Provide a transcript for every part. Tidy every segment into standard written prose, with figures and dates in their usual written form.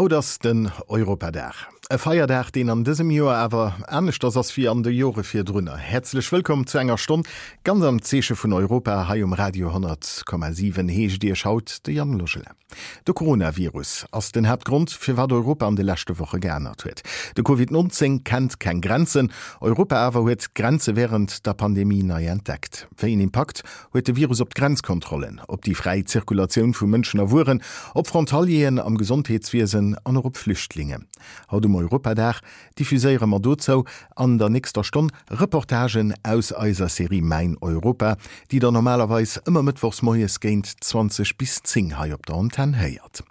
Haut ass den Europadag. E Feierdag, deen an dësem Joer awer aneschters ass wéi an de Jore virdrunner. Häerzlech wëllkomm zu enger Stonn ganz am Zeeche vun Europa hei um Radio 100,7 heescht Iech haut de Yann Logelin. De Coronavirus ass den Haaptgrond, firwat Europa an de leschte Woche geännert huet. De Covid 19 kennt keng Grenzen. Europa awer huet d'Grenze wärend der Pandemie nei entdeckt. Wéi en Impakt huet de Virus op d'Grenzkontrollen, op déi fräi Zirkulatioun vu Mënschen a Wueren, op Frontalieren am Gesondheetswiesen an och op Flüchtlinge? Haut um Europadag diffuséiere mer dozou an der nächster Stonn Reportagen aus eiser Serie Mäin Europa, déi der normalerweis ëmmer mëttwochs moies géint 20 bis 10 hei op der Antenn héiert.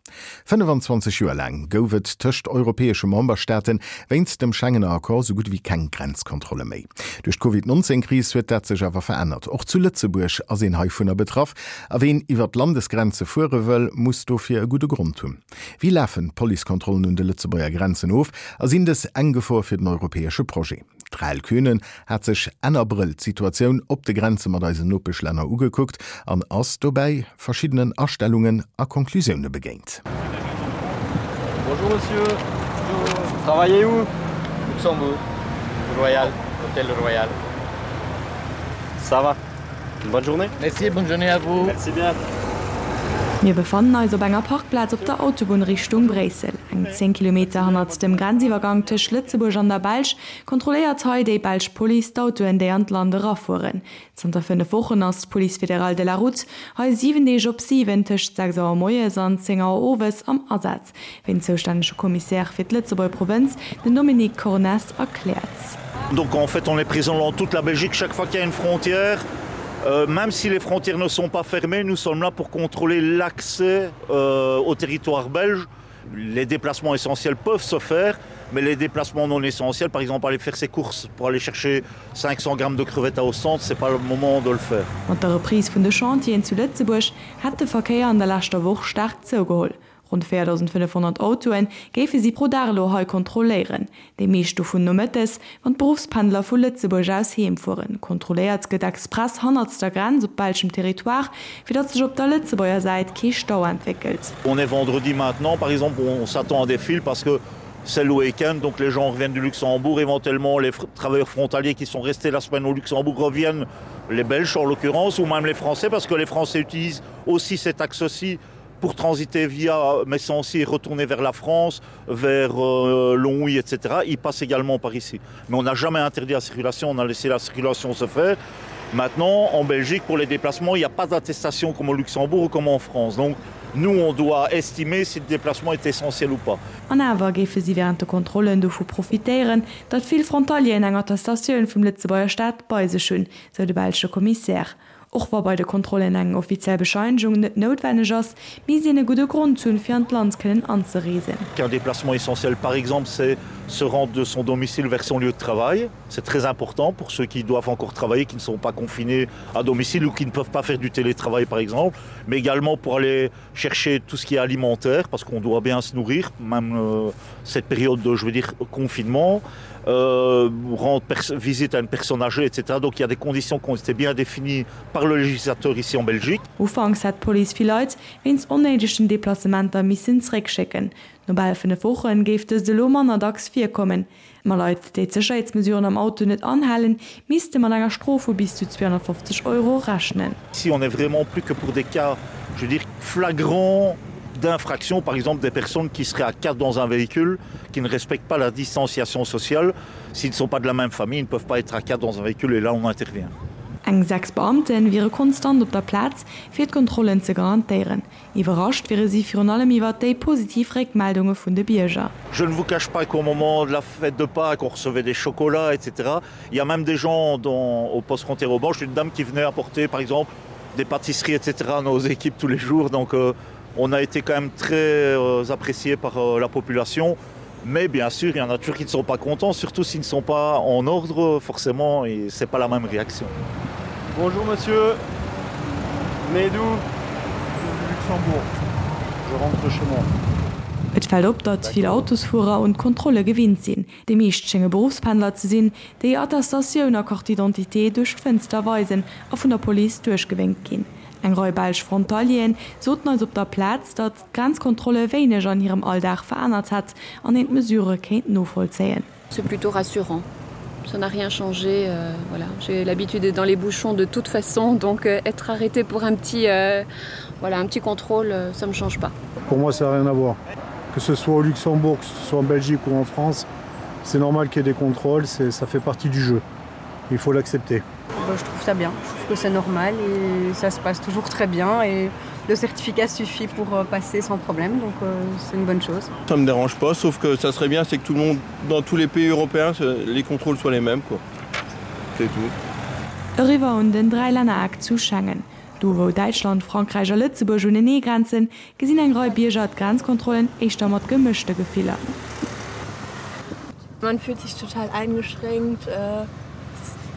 25 Joer laang gouf et tëscht europäesche Memberstaate wéinst dem Schengener Accord sou gutt ewéi keng Grenzkontrolle méi. Duerch d'Covid 19 Kris huet dat sech awer verännert. Och zu Lëtzebuerg ass een heivunner betraff a ween iwwer d'Landesgrenze fuere wëll, muss dofir e gudde Grond hunn. Wéi lafen d'Policekontrollen un de Lëtzebuerger Grenzen of a sinn dës eng Gefor fir den europäesche Projet? D'Rahel Kühnen hat sech Enn Abrëll d'Situatioun op de Grenze mat eisen Nopeschlänner ugekuckt an ass dobäi verschiddenen Astellungen a Conclusioune begéint. Bonjour monsieur, vous travaillez où? Luxembourg, Royal, Hôtel Royal. Ça va. Bonne journée. Merci, bonne journée à vous. Merci bien. Mir befannen eis op enger Parkplaz op der Autobunn Richtung Bréissel. Eng 10 Kilometer hannert dem Grenziwwergank tëscht Lëtzebuerg an der Belsch kontrolléiert hei déi belsch Police d'Autoen, déi an d'Land erafueren. Zanter 5 Wochen ass d'Police fédérale de la route hei 7 Deeg op 7 tëscht 6 Auer moies an 10 Auer owes am Asaz. Wéi den zoustännege Commissaire fir d'Lëtzebuerger Provënz, den Dominique Cornesse, erkläert. Donc en fait on est présent dans toute la Belgique chaque fois qu'il y a une frontière. Euh, même si les frontières ne sont pas fermées, nous sommes là pour contrôler l'accès euh, au territoire belge. Les déplacements essentiels peuvent se faire, mais les déplacements non essentiels, par exemple aller faire ses courses pour aller chercher 500 grammes de crevettes à Ostende, c'est pas le moment de le faire. Mat der Reprise vun de Chantieren zu Lëtzebuerg hätt de Verkéier an der leschter Woch staark zougeholl. Ronn 4.500 Autoe géife si pro Dag elo hei kontrolléieren, déi meescht dovun nomëttes, wann d'Beruffspendler vu Lëtzebuerg aus heem fueren. Kontrolléiert gëtt express hannert der Grenz op belschem Territoire, fir datt sech op der Lëtzebuerger Säit kee Stau entwéckelt. On est vendredi maintenant par exemple, on s'attend à des files parce que c'est le week-end, donc les gens reviennent du Luxembourg, éventuellement les travailleurs frontaliers qui sont restés la semaine au Luxembourg reviennent, les Belges en l'occurrence, ou même les Français, parce que les Français utilisent aussi cet axe-ci pour transiter via Messancy et retourner vers la France, vers euh, Longwy, etc. Il passe également par ici. Mais on n'a jamais interdit la circulation, on a laissé la circulation se faire. Maintenant, en Belgique, pour les déplacements, il n'y a pas d'attestation comme au Luxembourg ou comme en France. Donc, nous, on doit estimer si le déplacement est essentiel ou pas. An awer géife si wärend de Kontrollen dovu profitéieren, datt vill Frontalieren eng Attestatioun vum Lëtzebuerger Staat bei sech hunn, sou de belsche Kommissär. Och wa bei de Kontrollen eng offiziell Bescheinegung net noutwenneg ass, misst een e gudde Grond hunn, fir an d'Land kënnen anzereesen. Un déplacement essentiel par exemple c'est se rendre de son domicile vers son lieu de travail. C'est très important pour ceux qui doivent encore travailler, qui ne sont pas confinés à domicile ou qui ne peuvent pas faire du télétravail par exemple, mais également pour aller chercher tout ce qui est alimentaire parce qu'on doit bien se nourrir, même euh, cette période de je veux dire confinement euh, rendre visite à une personne âgée, etc. Donc il y a des conditions qui ont été bien définies par le législateur ici en Belgique. Ufanks hätt d'Police vill Leit wéinst onnéidegen Deplacementer missen zeréckschécken. No bal 5 Woche géif dëst elo manner dacks virkommen. Ma Leit, déi d'Sécherheetsmesuren am Auto net anhalen, misste mat enger Strof vu bis zu 250 Euro rechnen. Ici on est vraiment plus que pour des cas, je veux dire, flagrants d'infraction, par exemple des personnes qui seraient à 4 dans un véhicule, qui ne respectent pas la distanciation sociale, s'ils ne sont pas de la même famille, ils ne peuvent pas être à 4 dans un véhicule et là on intervient. Eng 6 Beamte wiere konstant op der Plaz, fir d'Kontrollen ze garantéieren. Iwwerrascht wiere si virun allem iwwer déi positiv Réckmeldunge vun de Bierger. Je ne vous cache pas qu'au moment de la fête de Pâques, on recevait des chocolats, etc. Il y a même des gens dans, au poste frontière au Banche, une dame qui venait apporter par exemple des pâtisseries, etc. à nos équipes tous les jours. Donc euh, on a été quand même très euh, apprécié par euh, la population. Mais bien sûr, il y en a toujours qui ne sont pas contents, surtout s'ils ne sont pas en ordre, forcément, et c'est pas la même réaction. Bonjour monsieur, mais d'où Luxembourg. Je rentre chez moi. Et fält op, datt vill Autosfuerer un d'Kontrolle gewinnt sinn. Déi meescht schénge Beruffspendler ze sinn, déi Attestatioun a Carte d'identité duerch d'Fënster weisen a vun der Police duerchgewénkt ginn. Eng Rei belsch Frontalieren soten eis op der Plaz, datt d'Grenzkontrolle wéineg an hirem Alldag verännert hätt an een d'Mesurë kéint novollzéien. C'est plutôt rassurant. Ça n'a rien changé euh, voilà. J'ai l'habitude d'être dans les bouchons de toute façon, donc euh, être arrêté pour un petit, euh, voilà, un petit contrôle, euh, ça me change pas. Pour moi, ça n'a rien à voir. Que ce soit au Luxembourg, que ce soit en Belgique ou en France, c'est normal qu'il y ait des contrôles, ça fait partie du jeu. Il faut l'accepter. Bah, je trouve ça bien, je trouve que c'est normal et ça se passe toujours très bien et le certificat suffit pour euh, passer sans problème donc euh, c'est une bonne chose. Ça me dérange pas sauf que ça serait bien c'est que tout le monde dans tous les pays européens les contrôles soient les mêmes quoi. C'est tout. Eriwwer un den Dräilännereck zu Schengen. Do wou Däitschland, Frankräich a Lëtzebuerg unenee grenzen, gesinn eng Rei Bierger d'Grenzkontrollen éischter mat gemëschte Gefiller. Man fühlt sich total eingeschränkt, äh,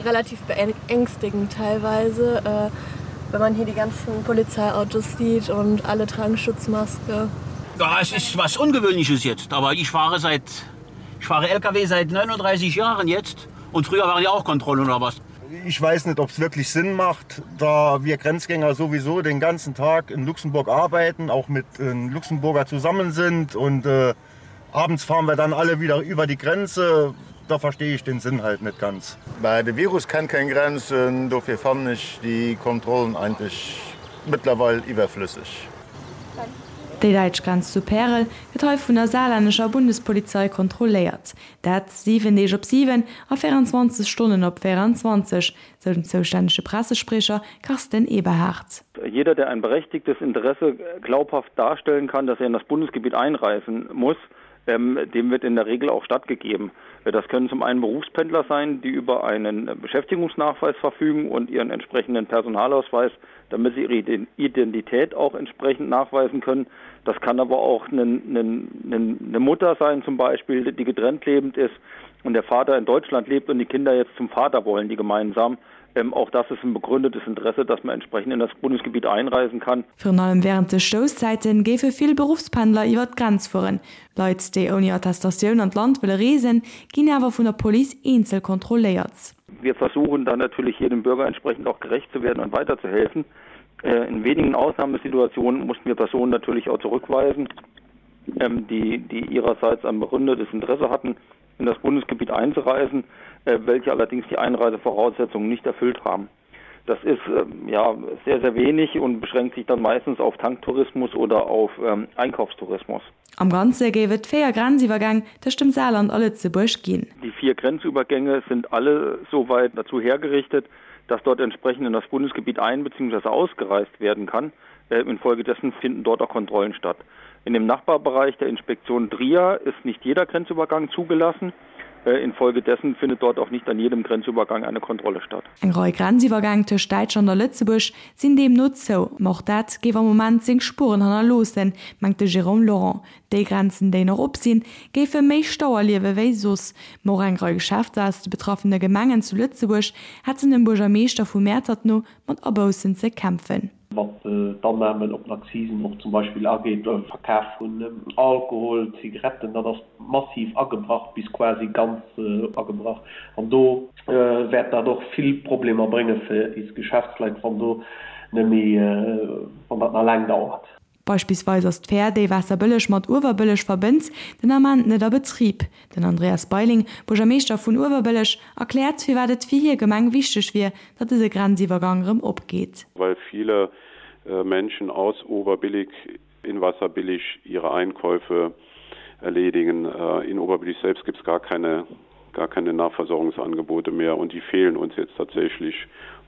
relativ beängstigend teilweise, äh, wenn man hier die ganzen Polizeiautos sieht und alle tragen Schutzmaske. Ja, es ist was Ungewöhnliches jetzt, aber ich fahre seit ich fahre LKW seit 39 Jahren jetzt und früher waren ja auch Kontrollen oder was. Ich weiß nicht, ob es wirklich Sinn macht, da wir Grenzgänger sowieso den ganzen Tag in Luxemburg arbeiten, auch mit äh, Luxemburger zusammen sind und äh, abends fahren wir dann alle wieder über die Grenze. Da verstehe ich den Sinn halt nicht ganz. Bei de Virus kennt keng Grenzen, dofir fannen ech déi Kontrollen eigentlech mëttlerweil iwwerflësseg. Déi däitsch Grenz zu Pärel gëtt hei vun der saarlännescher Bundespolizei kontrolléiert. Dat 7 Deeg op 7 a 24 Stonnen op 24, sou den zoustännege Pressespriecher Carsten Eberhardt. Jeder, der ein berechtigtes Interesse glaubhaft darstellen kann, dass er in das Bundesgebiet einreisen muss, ähm, dem wird in der Regel auch stattgegeben. Das können zum einen Berufspendler sein, die über einen Beschäftigungsnachweis verfügen und ihren entsprechenden Personalausweis, damit sie ihre Identität auch entsprechend nachweisen können. Das kann aber auch eine, eine, eine Mutter sein zum Beispiel, die getrennt lebend ist und der Vater in Deutschland lebt und die Kinder jetzt zum Vater wollen, die gemeinsam. Ähm, auch das ist ein begründetes Interesse, dass man entsprechend in das Bundesgebiet einreisen kann. Virun allem wärend de Stousszäite géife vill Beruffspendler iwwer d'Grenz fueren. Leit, déi ouni Attestatioun an d'Land wëlle reesen, ginn awer vun der Police eenzel kontrolléiert. Wir versuchen dann natürlich jedem Bürger entsprechend auch gerecht zu werden und weiterzuhelfen. Äh, in wenigen Ausnahmesituationen mussten wir Personen natürlich auch zurückweisen, ähm, die, die ihrerseits ein begründetes Interesse hatten, in das Bundesgebiet einzureisen, äh, welche allerdings die Einreisevoraussetzungen nicht erfüllt haben. Das ist ähm, ja sehr, sehr wenig und beschränkt sich dann meistens auf Tanktourismus oder auf ähm, Einkaufstourismus. Am Ganze géif et 4 Grenziwwergäng tëscht dem Saarland a Lëtzebuerg ginn. Die vier Grenzübergänge sind alle soweit dazu hergerichtet, dass dort entsprechend in das Bundesgebiet ein bzw. ausgereist werden kann. Äh, infolgedessen finden dort auch Kontrollen statt. In dem Nachbarbereich der Inspektion Trier ist nicht jeder Grenzübergang zugelassen. Äh, infolgedessen findet dort auch nicht an jedem Grenzübergang eine Kontrolle statt. Eng Rei Grenziwwergäng tëscht Däitschland a Lëtzebuerg sinn deemno zou. Ma och dat géif am Moment seng Spueren hannerloossen, mengt de Jérôme Laurent. Déi Grenzen, déi nach op sinn, géife méi Stau erliewe wéi soss. Ma och eng Rei Geschäfter aus de betraffene Gemengen zu Lëtzebuerg hätten dem Buergermeeschter vu Mäertert no mat Aboussen ze kämpfen. Wat d'Annahmen op den Akzisen och zum Beispill ageet, Verkaf vun Alkohol, Zigaretten, dat ass massiv agebrach, bis quasi ganz agebrach. An do wäert dat och vill Problemer brénge fir is Geschäftsleit, wann do net méi, wann dat nach laang dauert. Beispillsweis ass d'Fähr, déi Waasserbëlleg mat Uewerbëlleg verbënnt, den Ament net a Betrib. Den Andreas Beiling, Buergermeeschter vun Uewerbëlleg, erkläert, firwat et fir hir Gemeng wichteg wier, datt dëse Grenziwwergang erëm opgeet. Well viele Menschen aus Oberbillig in Wasserbillig ihre Einkäufe erledigen. In Oberbillig selbst gibt es gar keine, gar keine Nahversorgungsangebote mehr und die fehlen uns jetzt tatsächlich.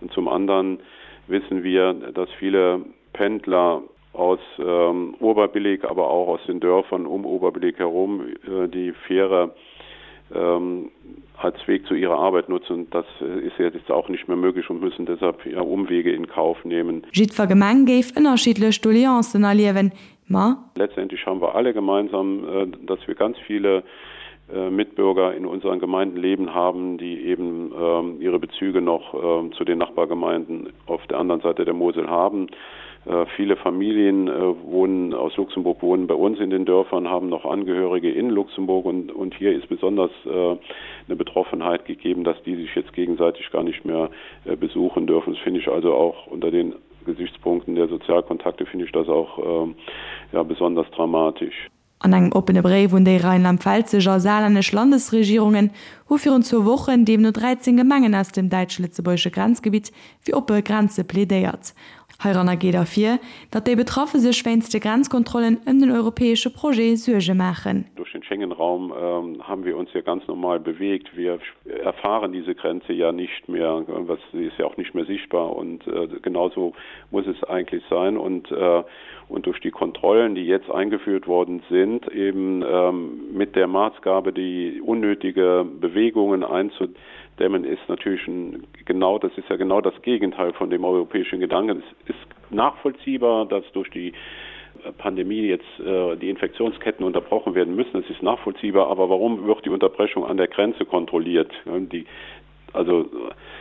Und zum anderen wissen wir, dass viele Pendler aus ähm, Oberbillig, aber auch aus den Dörfern um Oberbillig herum äh, die Fähre ähm, als Weg zu ihrer Arbeit nutzen. Das äh, ist jetzt auch nicht mehr möglich und müssen deshalb ja, Umwege in Kauf nehmen. Jiddwer Gemeng géif ënnerschiddlech Doleancen erliewen, ma. Letztendlich haben wir alle gemeinsam, äh, dass wir ganz viele äh, Mitbürger in unseren Gemeinden leben haben, die eben ähm, ihre Bezüge noch ähm, zu den Nachbargemeinden auf der anderen Seite der Mosel haben. Äh, viele Familien äh, wohnen aus Luxemburg wohnen bei uns in den Dörfern, haben noch Angehörige in Luxemburg und, und hier ist besonders äh, eine Betroffenheit gegeben, dass die sich jetzt gegenseitig gar nicht mehr besuchen dürfen. Das finde ich also auch unter den. Gesichtspunkten der Sozialkontakte finde ich das auch ähm, ja, besonders dramatisch. An engem oppene Bréif un déi rheinland-pfälzesch a saarlännesch Landesregierungen hu virun zwou Wochen deemno 13 Gemengen aus dem däitsch-lëtzebuergesche Grenzgebitt fir oppe Grenze plädéiert. Heiranner geet ervir, datt déi Betraffe sech wéinst de Grenzkontrollen ëm den europäesche Projet Suerge maachen. Durch den Schengenraum haben wir uns ja ganz normal bewegt. Wir erfahren diese Grenze ja nicht mehr, was sie ist ja auch nicht mehr sichtbar und genauso muss es eigentlich sein und und durch die Kontrollen, die jetzt eingeführt worden sind, eben mit der Maßgabe, die unnötige Bewegungen einzudämmen, ist natürlich ein, genau das ist ja genau das Gegenteil von dem europäischen Gedanken. Es ist nachvollziehbar, dass durch die Pandemie jetzt äh, die Infektionsketten unterbrochen werden müssen. Es ist nachvollziehbar, aber warum wird die Unterbrechung an der Grenze kontrolliert? Die, also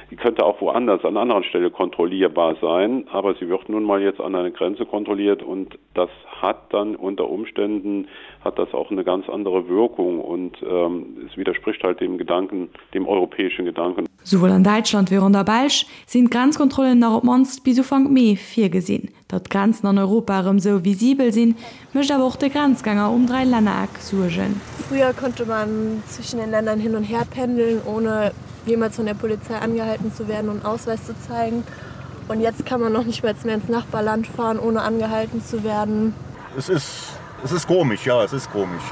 die könnte auch woanders an anderen Stelle kontrollierbar sein, aber sie wird nun mal jetzt an einer Grenze kontrolliert und das hat dann unter Umständen hat das auch eine ganz andere Wirkung und ähm, es widerspricht halt dem Gedanken, dem europäischen Gedanken. Souwuel an Däitschland wéi och an der Belsch sinn d'Grenzkontrollen nach op d'mannst bis Ufank Mee virgesinn. Datt d'Grenzen an Europa erëm sou visibel sinn, mécht awer och de Grenzgänger um Dräilännereck Suergen. Früher konnte man zwischen den Ländern hin und her pendeln, ohne jemals von der Polizei angehalten zu werden und Ausweis zu zeigen. Und jetzt kann man noch nicht mal mehr ins Nachbarland fahren, ohne angehalten zu werden. Es ist, es ist komisch, ja, es ist komisch.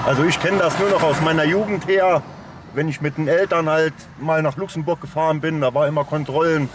Also ich kenne das nur noch aus meiner Jugend her, wenn ich mit den Eltern halt mal nach Luxemburg gefahren bin, da war immer Kontrollen.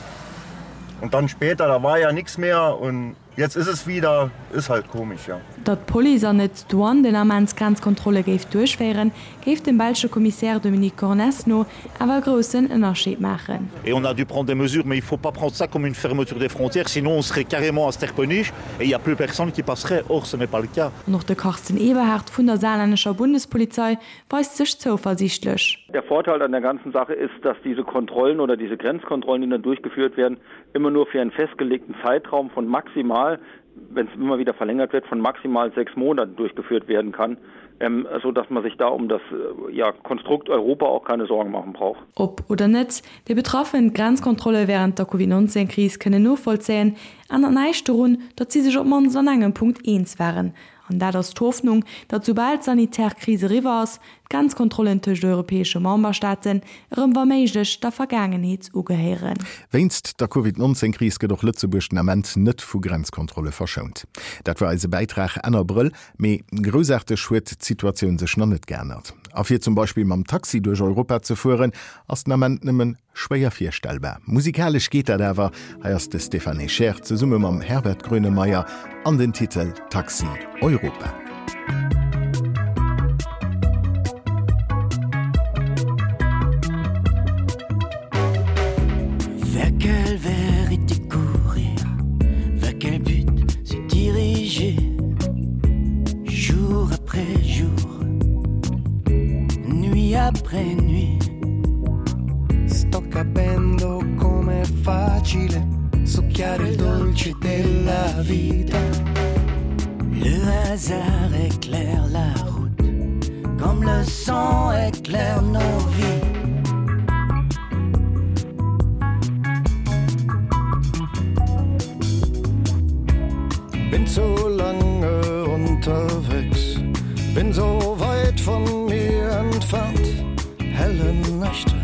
Und dann später, da war ja nichts mehr und jetzt ist es wieder, ist halt komisch, ja. Datt d'Police an net d'Douane den Ament Grenzkontrolle géif duerchféieren, géif dem belsche Kommissär Dominique Cornesse no awer e groussen Ënnerscheed maachen. Et on a dû prendre des mesures, mais il faut pas prendre ça comme une fermeture des frontières, sinon on serait carrément à Sterpenich et il y a plus personne qui passerait, or ce n'est pas le cas. An och de Carsten Eberhard vun der saarlännescher Bundespolizei weist sech zouversiichtlech. Der Vorteil an der ganzen Sache ist, dass diese Kontrollen oder diese Grenzkontrollen, die dann durchgeführt werden, immer nur für einen festgelegten Zeitraum von maximal, wenn es immer wieder verlängert wird, von maximal sechs Monaten durchgeführt werden kann, ähm, so dass man sich da um das äh, ja, Konstrukt Europa auch keine Sorgen machen braucht. Ob oder net, déi Betraffen d'Grenzkontrolle wärend der Covid-19-Kris kënnen novollzéien, ännert näischt dorun, datt si sech op d'mannst an engem Punkt eens waren, An dat ass d'Hoffnung, datt soubal d'sanitär Kris eriwwer ass, d'Grenzkontrollen tëscht europäesche Memberstaaten erëm wa méiglech der Vergaangenheet ugehéieren. Wéinst der Covid 19 Kris gëtt och Lëtzebuerg den Ament net vu Grenzkontrolle verschount. Dat war eise Bäitrag Enn Abrëll. Mee groussaarteg huet d'Situatioun sech nach net geännert. A fir zum Beispill mam Taxi duerch Europa ze fueren, ass den Ament nëmmen Schwéier virstellbar. Musikalesch geet dat awer. Hei ass de Stéphane Echer zesumme mam Herbert Grönemeyer an den Titel Taxi Europa. Vers quelle vérité courir? Vers quel but se diriger? Jour après jour, nuit après nuit. Sto capendo com'è facile succhiare il dolce della vita. Le hasard éclaire la route comme le sang éclaire nos vies. Bin zu lange unterwegs, bin so weit von mir entfernt, helle Nächte,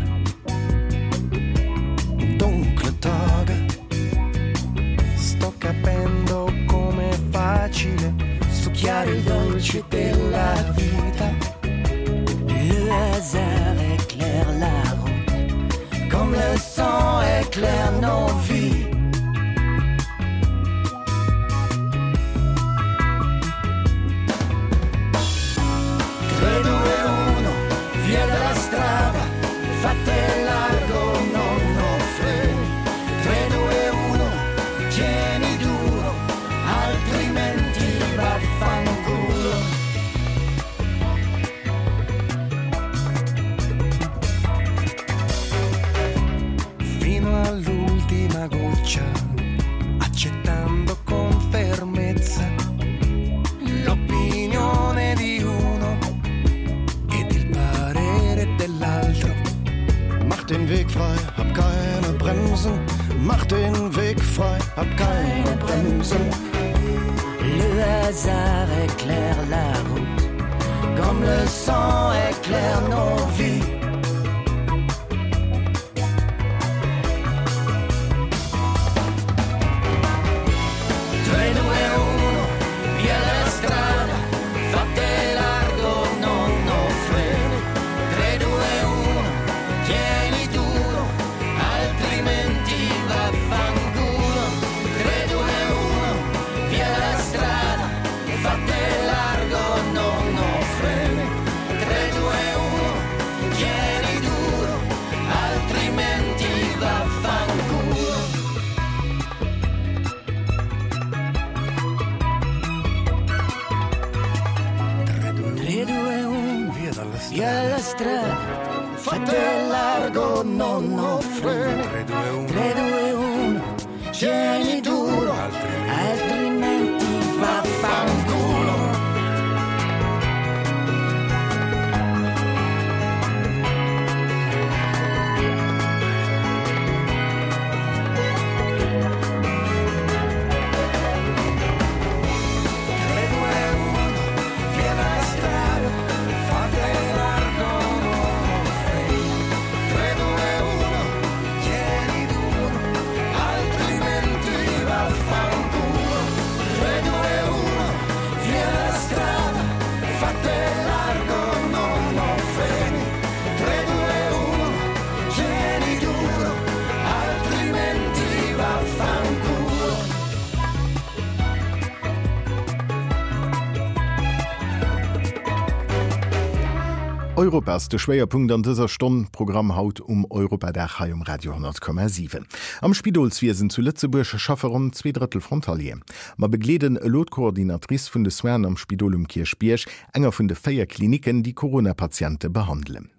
dunkle Tage. Sto capendo come è facile succhiare il dolce della vita. Le hasard éclaire la route, comme le sang éclaire nos vies. Tre, due, uno, via dalla strada, fate largo, non ho freni. 3, 2, 1, tieni duro, altrimenti vaffanculo. Fino all'ultimo. hasard éclaire la route comme le sang éclaire nos vies. Strada, fate largo, non ho freni. 3, 2, 1, 3, 2, 1, tieni duro, altrimenti vaffanculo. Europa ass de Schwéierpunkt an dëser Stonn Programm haut um Europadag hei um Radio 10,7. Am Spidolswiesen zu Lëtzebuerg schaffe ronn zweedrëttel Frontalieren. Mer begleeden elo d'Coordinatrice vun de Soinen am Spidol um Kierchbierg, enger vun de 4 Klinicken, déi Corona-Patiente behandelen.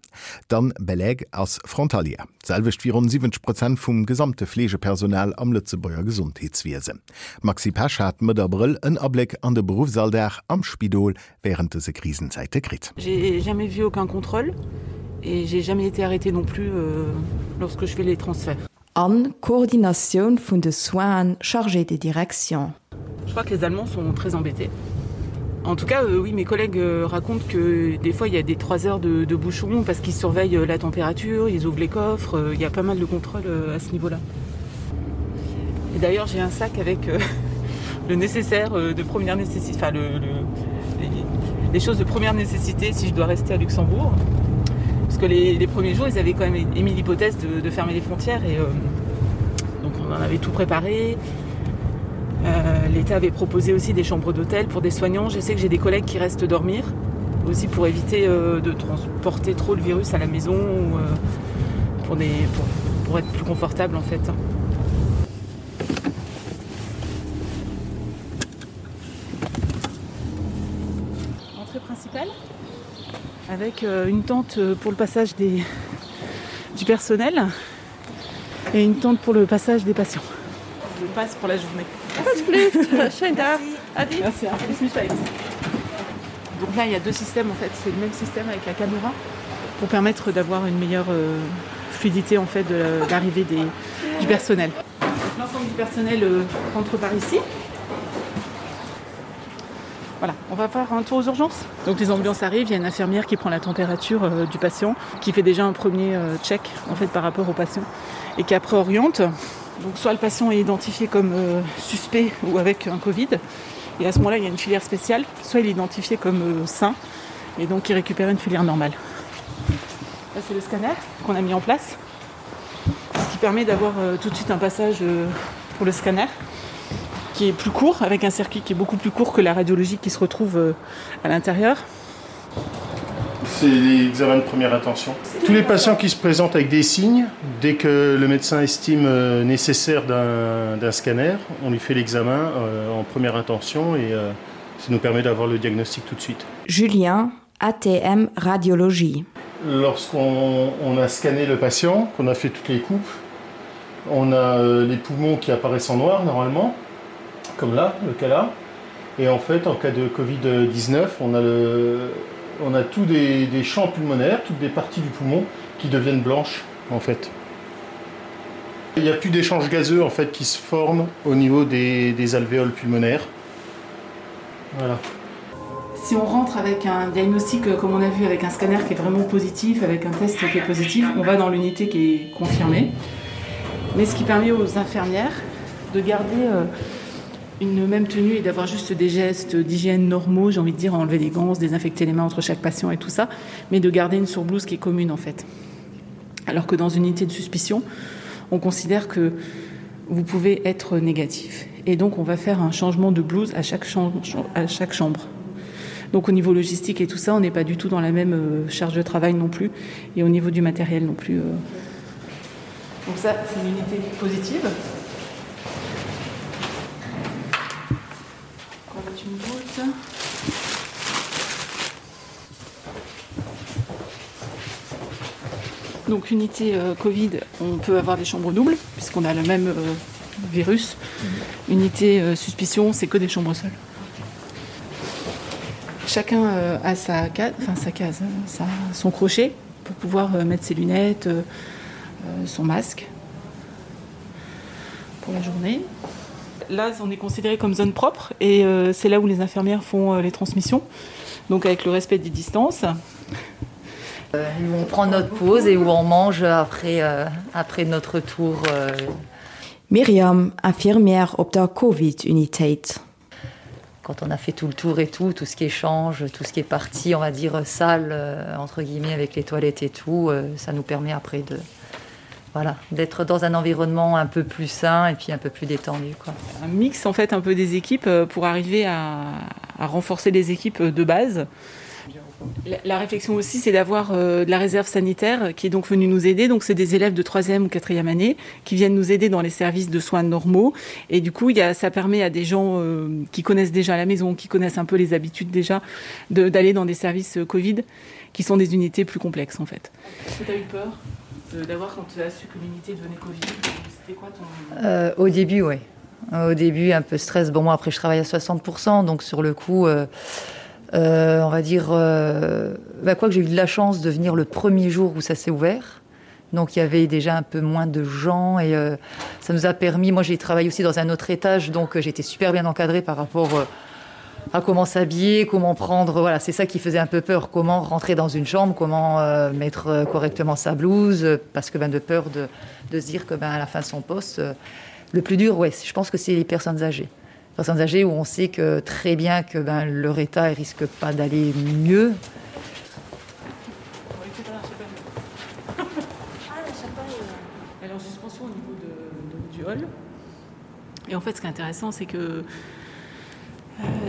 D'Anne Beleg ass Frontalière, d'selwecht wéi ronn 70 Prozent vum gesamte Fleegepersonal am Lëtzebuerger Gesondheetswiesen. D'Maxi Pesch hat Mëtt Abrëll en Abléck an de Beruffsalldag am Spidol wärend dëse Krisenzäite kritt. J'ai jamais vu aucun contrôle et j'ai jamais été arrêtée non plus lorsque je fais les transferts. An Koordinatioun vun de Soinen, Chargé de direction. Je crois que les Allemands sont très embêtés. En tout cas, euh, oui, mes collègues euh, racontent que des fois il y a des 3 heures de, de bouchons parce qu'ils surveillent euh, la température, ils ouvrent les coffres, euh, il y a pas mal de contrôles euh, à ce niveau-là. Et d'ailleurs, j'ai un sac avec euh, le nécessaire euh, de première nécessité enfin le, le, les, les choses de première nécessité si je dois rester à Luxembourg. Parce que les, les premiers jours, ils avaient quand même émis l'hypothèse de, de fermer les frontières et euh, donc on en avait tout préparé. Euh, L'État avait proposé aussi des chambres d'hôtel pour des soignants. Je sais que j'ai des collègues qui restent dormir aussi pour éviter euh, de transporter trop le virus à la maison ou euh, pour, des, pour, pour être plus confortable en fait. Entrée principale avec euh, une tente euh, pour le passage des, du personnel et une tente pour le passage des patients. Je passe pour la journée. Merci. Merci. Donc là il y a deux systèmes en fait, c'est le même système avec la caméra pour permettre d'avoir une meilleure euh, fluidité en fait de l'arrivée du personnel. L'ensemble du personnel euh, rentre par ici. Voilà, on va faire un tour aux urgences. Donc les ambulances arrivent, il y a une infirmière qui prend la température euh, du patient, qui fait déjà un premier euh, check en fait par rapport au patient et qui après oriente. Donc soit le patient est identifié comme euh, suspect ou avec un Covid et à ce moment-là il y a une filière spéciale, soit il est identifié comme euh, sain et donc il récupère une filière normale. Là c'est le scanner qu'on a mis en place, ce qui permet d'avoir euh, tout de suite un passage euh, pour le scanner qui est plus court, avec un circuit qui est beaucoup plus court que la radiologie qui se retrouve euh, à l'intérieur. C'est l'examen de première attention. Tous les patients qui se présentent avec des signes, dès que le médecin estime euh, nécessaire d'un scanner, on lui fait l'examen euh, en première intention et euh, ça nous permet d'avoir le diagnostic tout de suite. Julien, ATM Radiologie. Lorsqu'on a scanné le patient, qu'on a fait toutes les coupes, on a euh, les poumons qui apparaissent en noir normalement, comme là, le cas là. Et en fait, en cas de Covid-19, on a le, on a tous des, des champs pulmonaires, toutes des parties du poumon qui deviennent blanches en fait. Il n'y a plus d'échanges gazeux en fait qui se forment au niveau des, des alvéoles pulmonaires. Voilà. Si on rentre avec un diagnostic euh, comme on a vu avec un scanner qui est vraiment positif, avec un test qui est positif, on va dans l'unité qui est confirmée. Mais ce qui permet aux infirmières de garder euh, une même tenue et d'avoir juste des gestes d'hygiène normaux, j'ai envie de dire enlever les gants, désinfecter les mains entre chaque patient et tout ça, mais de garder une surblouse qui est commune en fait. Alors que dans une unité de suspicion, on considère que vous pouvez être négatif et donc on va faire un changement de blouse à chaque chambre, à chaque chambre. Donc au niveau logistique et tout ça, on n'est pas du tout dans la même euh, charge de travail non plus et au niveau du matériel non plus. Euh. Donc ça c'est une unité positive. Une boule. Donc unité euh, Covid, on peut avoir des chambres doubles puisqu'on a le même euh, virus. Mmh. Unité euh, suspicion, c'est que des chambres seules. Chacun euh, a sa case, enfin sa case, sa, son crochet pour pouvoir euh, mettre ses lunettes, euh, euh, son masque pour la journée. Là, on est considéré comme zone propre et euh, c'est là où les infirmières font euh, les transmissions, donc avec le respect des distances. Euh, où on prend notre pause et où on mange après, euh, après notre tour. Euh. Myriam, Infirmière op der Covid-Unitéit. Quand on a fait tout le tour et tout, tout ce qui échange, tout ce qui est parti, on va dire sale euh, entre guillemets avec les toilettes et tout, euh, ça nous permet après de voilà, d'être dans un environnement un peu plus sain et puis un peu plus détendu quoi. Un mix en fait un peu des équipes euh, pour arriver à, à renforcer les équipes de base. La, la réflexion aussi c'est d'avoir euh, de la réserve sanitaire qui est donc venue nous aider donc c'est des élèves de troisième ou quatrième année qui viennent nous aider dans les services de soins normaux et du coup il y a, ça permet à des gens euh, qui connaissent déjà la maison qui connaissent un peu les habitudes déjà d'aller dans des services euh, covid qui sont des unités plus complexes en fait. Tu as eu peur d'avoir quand tu as su que l'unité devenait covid quoi ton... euh, au début oui au début un peu stress bon moi après je travaille à 60 donc sur le coup euh, euh, on va dire euh, bah, quoi que j'ai eu de la chance de venir le premier jour où ça s'est ouvert donc il y avait déjà un peu moins de gens et euh, ça nous a permis moi j'ai travaillé aussi dans un autre étage donc euh, j'étais super bien encadrée par rapport euh, à comment s'habiller comment prendre voilà c'est ça qui faisait un peu peur comment rentrer dans une chambre comment euh, mettre euh, correctement sa blouse euh, parce que ben de peur de, de se dire que ben à la fin de son poste euh, le plus dur ouais je pense que c'est les personnes âgées personnes âgées où on sait que très bien que ben leur état risque pas d'aller mieux. Elle est en suspension au niveau de, de, du hall. Et en fait, ce qui est intéressant, c'est que euh,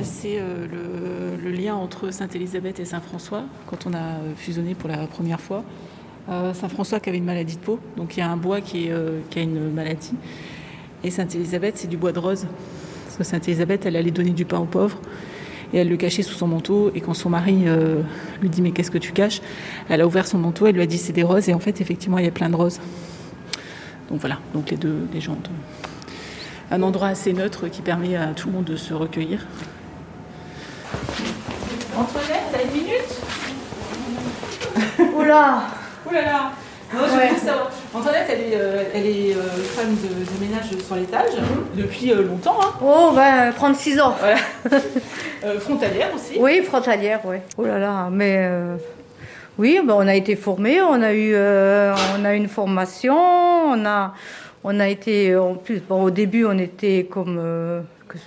c'est euh, le, le lien entre Sainte-Élisabeth et Saint-François, quand on a euh, fusionné pour la première fois. Euh, Saint-François qui avait une maladie de peau, donc il y a un bois qui, est, euh, qui a une maladie. Et Sainte-Élisabeth, c'est du bois de rose. Parce que Sainte-Élisabeth, elle allait donner du pain aux pauvres et elle le cachait sous son manteau. Et quand son mari euh, lui dit mais qu'est-ce que tu caches Elle a ouvert son manteau, elle lui a dit c'est des roses et en fait effectivement il y a plein de roses. Donc voilà, donc les deux légendes. Un endroit assez neutre qui permet à tout le monde de se recueillir. Antoinette, t'as une minute Oula Oula là Non, je ouais. savoir. Antoinette, elle est, euh, elle est euh, femme de, de ménage sur l'étage mmh. depuis euh, longtemps. Hein. Oh, ben, 36 ans. Voilà. euh, frontalière aussi. Oui, frontalière, oui. Oh là là, mais euh, oui, ben, on a été formés, on a eu euh, on a une formation, on a, on a été en plus bon, au début on était comme euh, que,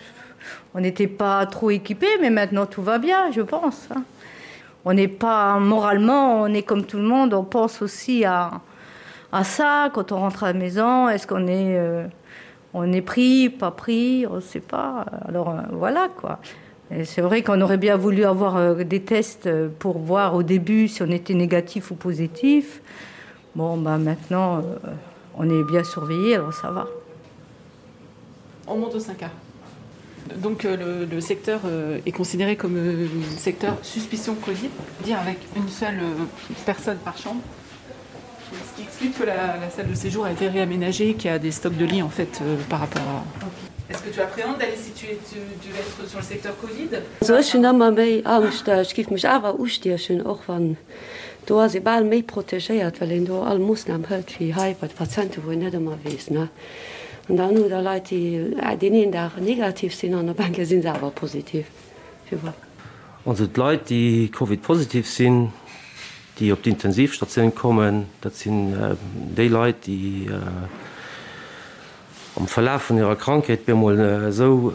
on n'était pas trop équipés, mais maintenant tout va bien, je pense. Hein. On n'est pas moralement, on est comme tout le monde, on pense aussi à, à ça quand on rentre à la maison, est-ce qu'on est, euh, on est pris, pas pris, on ne sait pas. Alors euh, voilà quoi. C'est vrai qu'on aurait bien voulu avoir euh, des tests euh, pour voir au début si on était négatif ou positif. Bon ben maintenant euh, on est bien surveillé, alors ça va. On monte au 5A. Donc euh, le, le secteur euh, est considéré comme euh, secteur suspicion Covid, dire avec une seule euh, personne par chambre. Ce qui explique que la, la salle de séjour a été réaménagée, qu'il y a des stocks de lits en fait euh, par rapport à. Okay. Est-ce que tu appréhendes d'aller si tu, es, tu, tu vas être sur le secteur Covid Also ech hunn ëmmer méi Angscht, ech géif mech awer ustiechen, och wann do ass ee bal méi protegéiert, well een do all Moossnam hëlt wéi hei bei de Patienten, wou een net ëmmer weess, ne. An dann hutt Der Leit, déi deen een Dag negativ sinn an op eng Kéier si se awer positiv. Puis voilà. Also d'Leit, déi Covid-positiv sinn, déi op d'Intensivstatioun kommen, dat sinn déi Leit, déi am Verlaf vun hirer Krankheet bemol esou,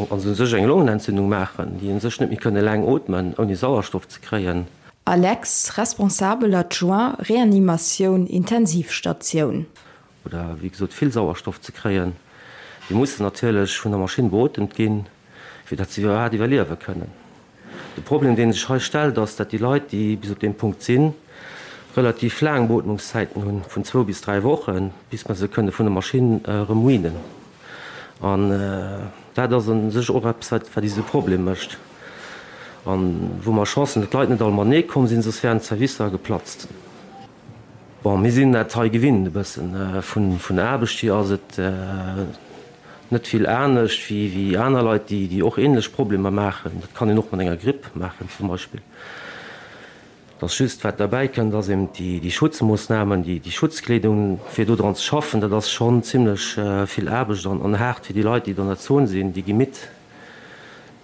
also u sech eng Longenentzündung maachen, déi u sech net méi kënne laang ootmen, ouni Sauerstoff ze kréien. Alex, Responsabel adjoint Reanimatioun Intensivstatioun. Oder wéi gesot vill Sauerstoff ze kréien. Déi mussen natierlech vun der Maschinn beotemt ginn, fir datt se iwwerhaapt iwwerliewe kënnen. De Problem, dee sech hei stellt, ass, datt déi Leit, déi bis op deem Punkt sinn, relativ laang Beotmungszäiten hunn, vun zwou bis dräi Wochen, bis mer se kënne vun der Maschinn erëm weanen. An dat ass u sech och eppes, wat wat eis e Problem mécht a wou mer Chance hunn, datt d'Leit net all matenee komm sinn, soss wären d'Servicer geplatzt. Bon, mir sinn dat hei gewinnt e bëssen. Vun der Aarbecht hier ass et net vill anescht wéi aner Leit, déi och änlech Problemer maachen. Dat kann een och mat enger Gripp maachen zum Beispill. Et ass just, wat derbäi kënnt, ass eben déi Schutzmoossnamen, déi Schutzkleedung, fir do dran ze schaffen. Dat ass schonn zimlech vill Aarbecht an haart fir déi Leit, déi an der Zon sinn. Déi gi midd.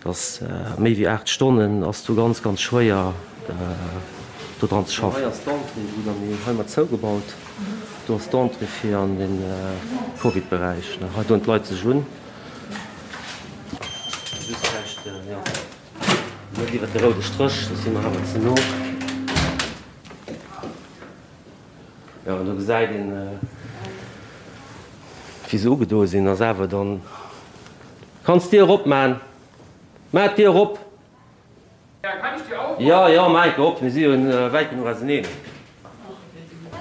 Dass méi wéi 8 Stonnen ass do ganz ganz schwéier do dran ze schaffen. Hei ass d'Entrée, wou dann déi hei mat zougebaut. Do ass d'Entrée fir an de Covid-Beräich. Hei doen d'Leit sech un. Just vläicht, jo, net iwwer de roude Stréch, soss si mer awer ze no. Jo, an do gesäit een, wéi se ugedoe sinn. Ass awer dann. Kanns d'Dier erop man? Maach d'Dier erop! Jo, jo, maach enke op, mir si jo wäit genuch auseneen.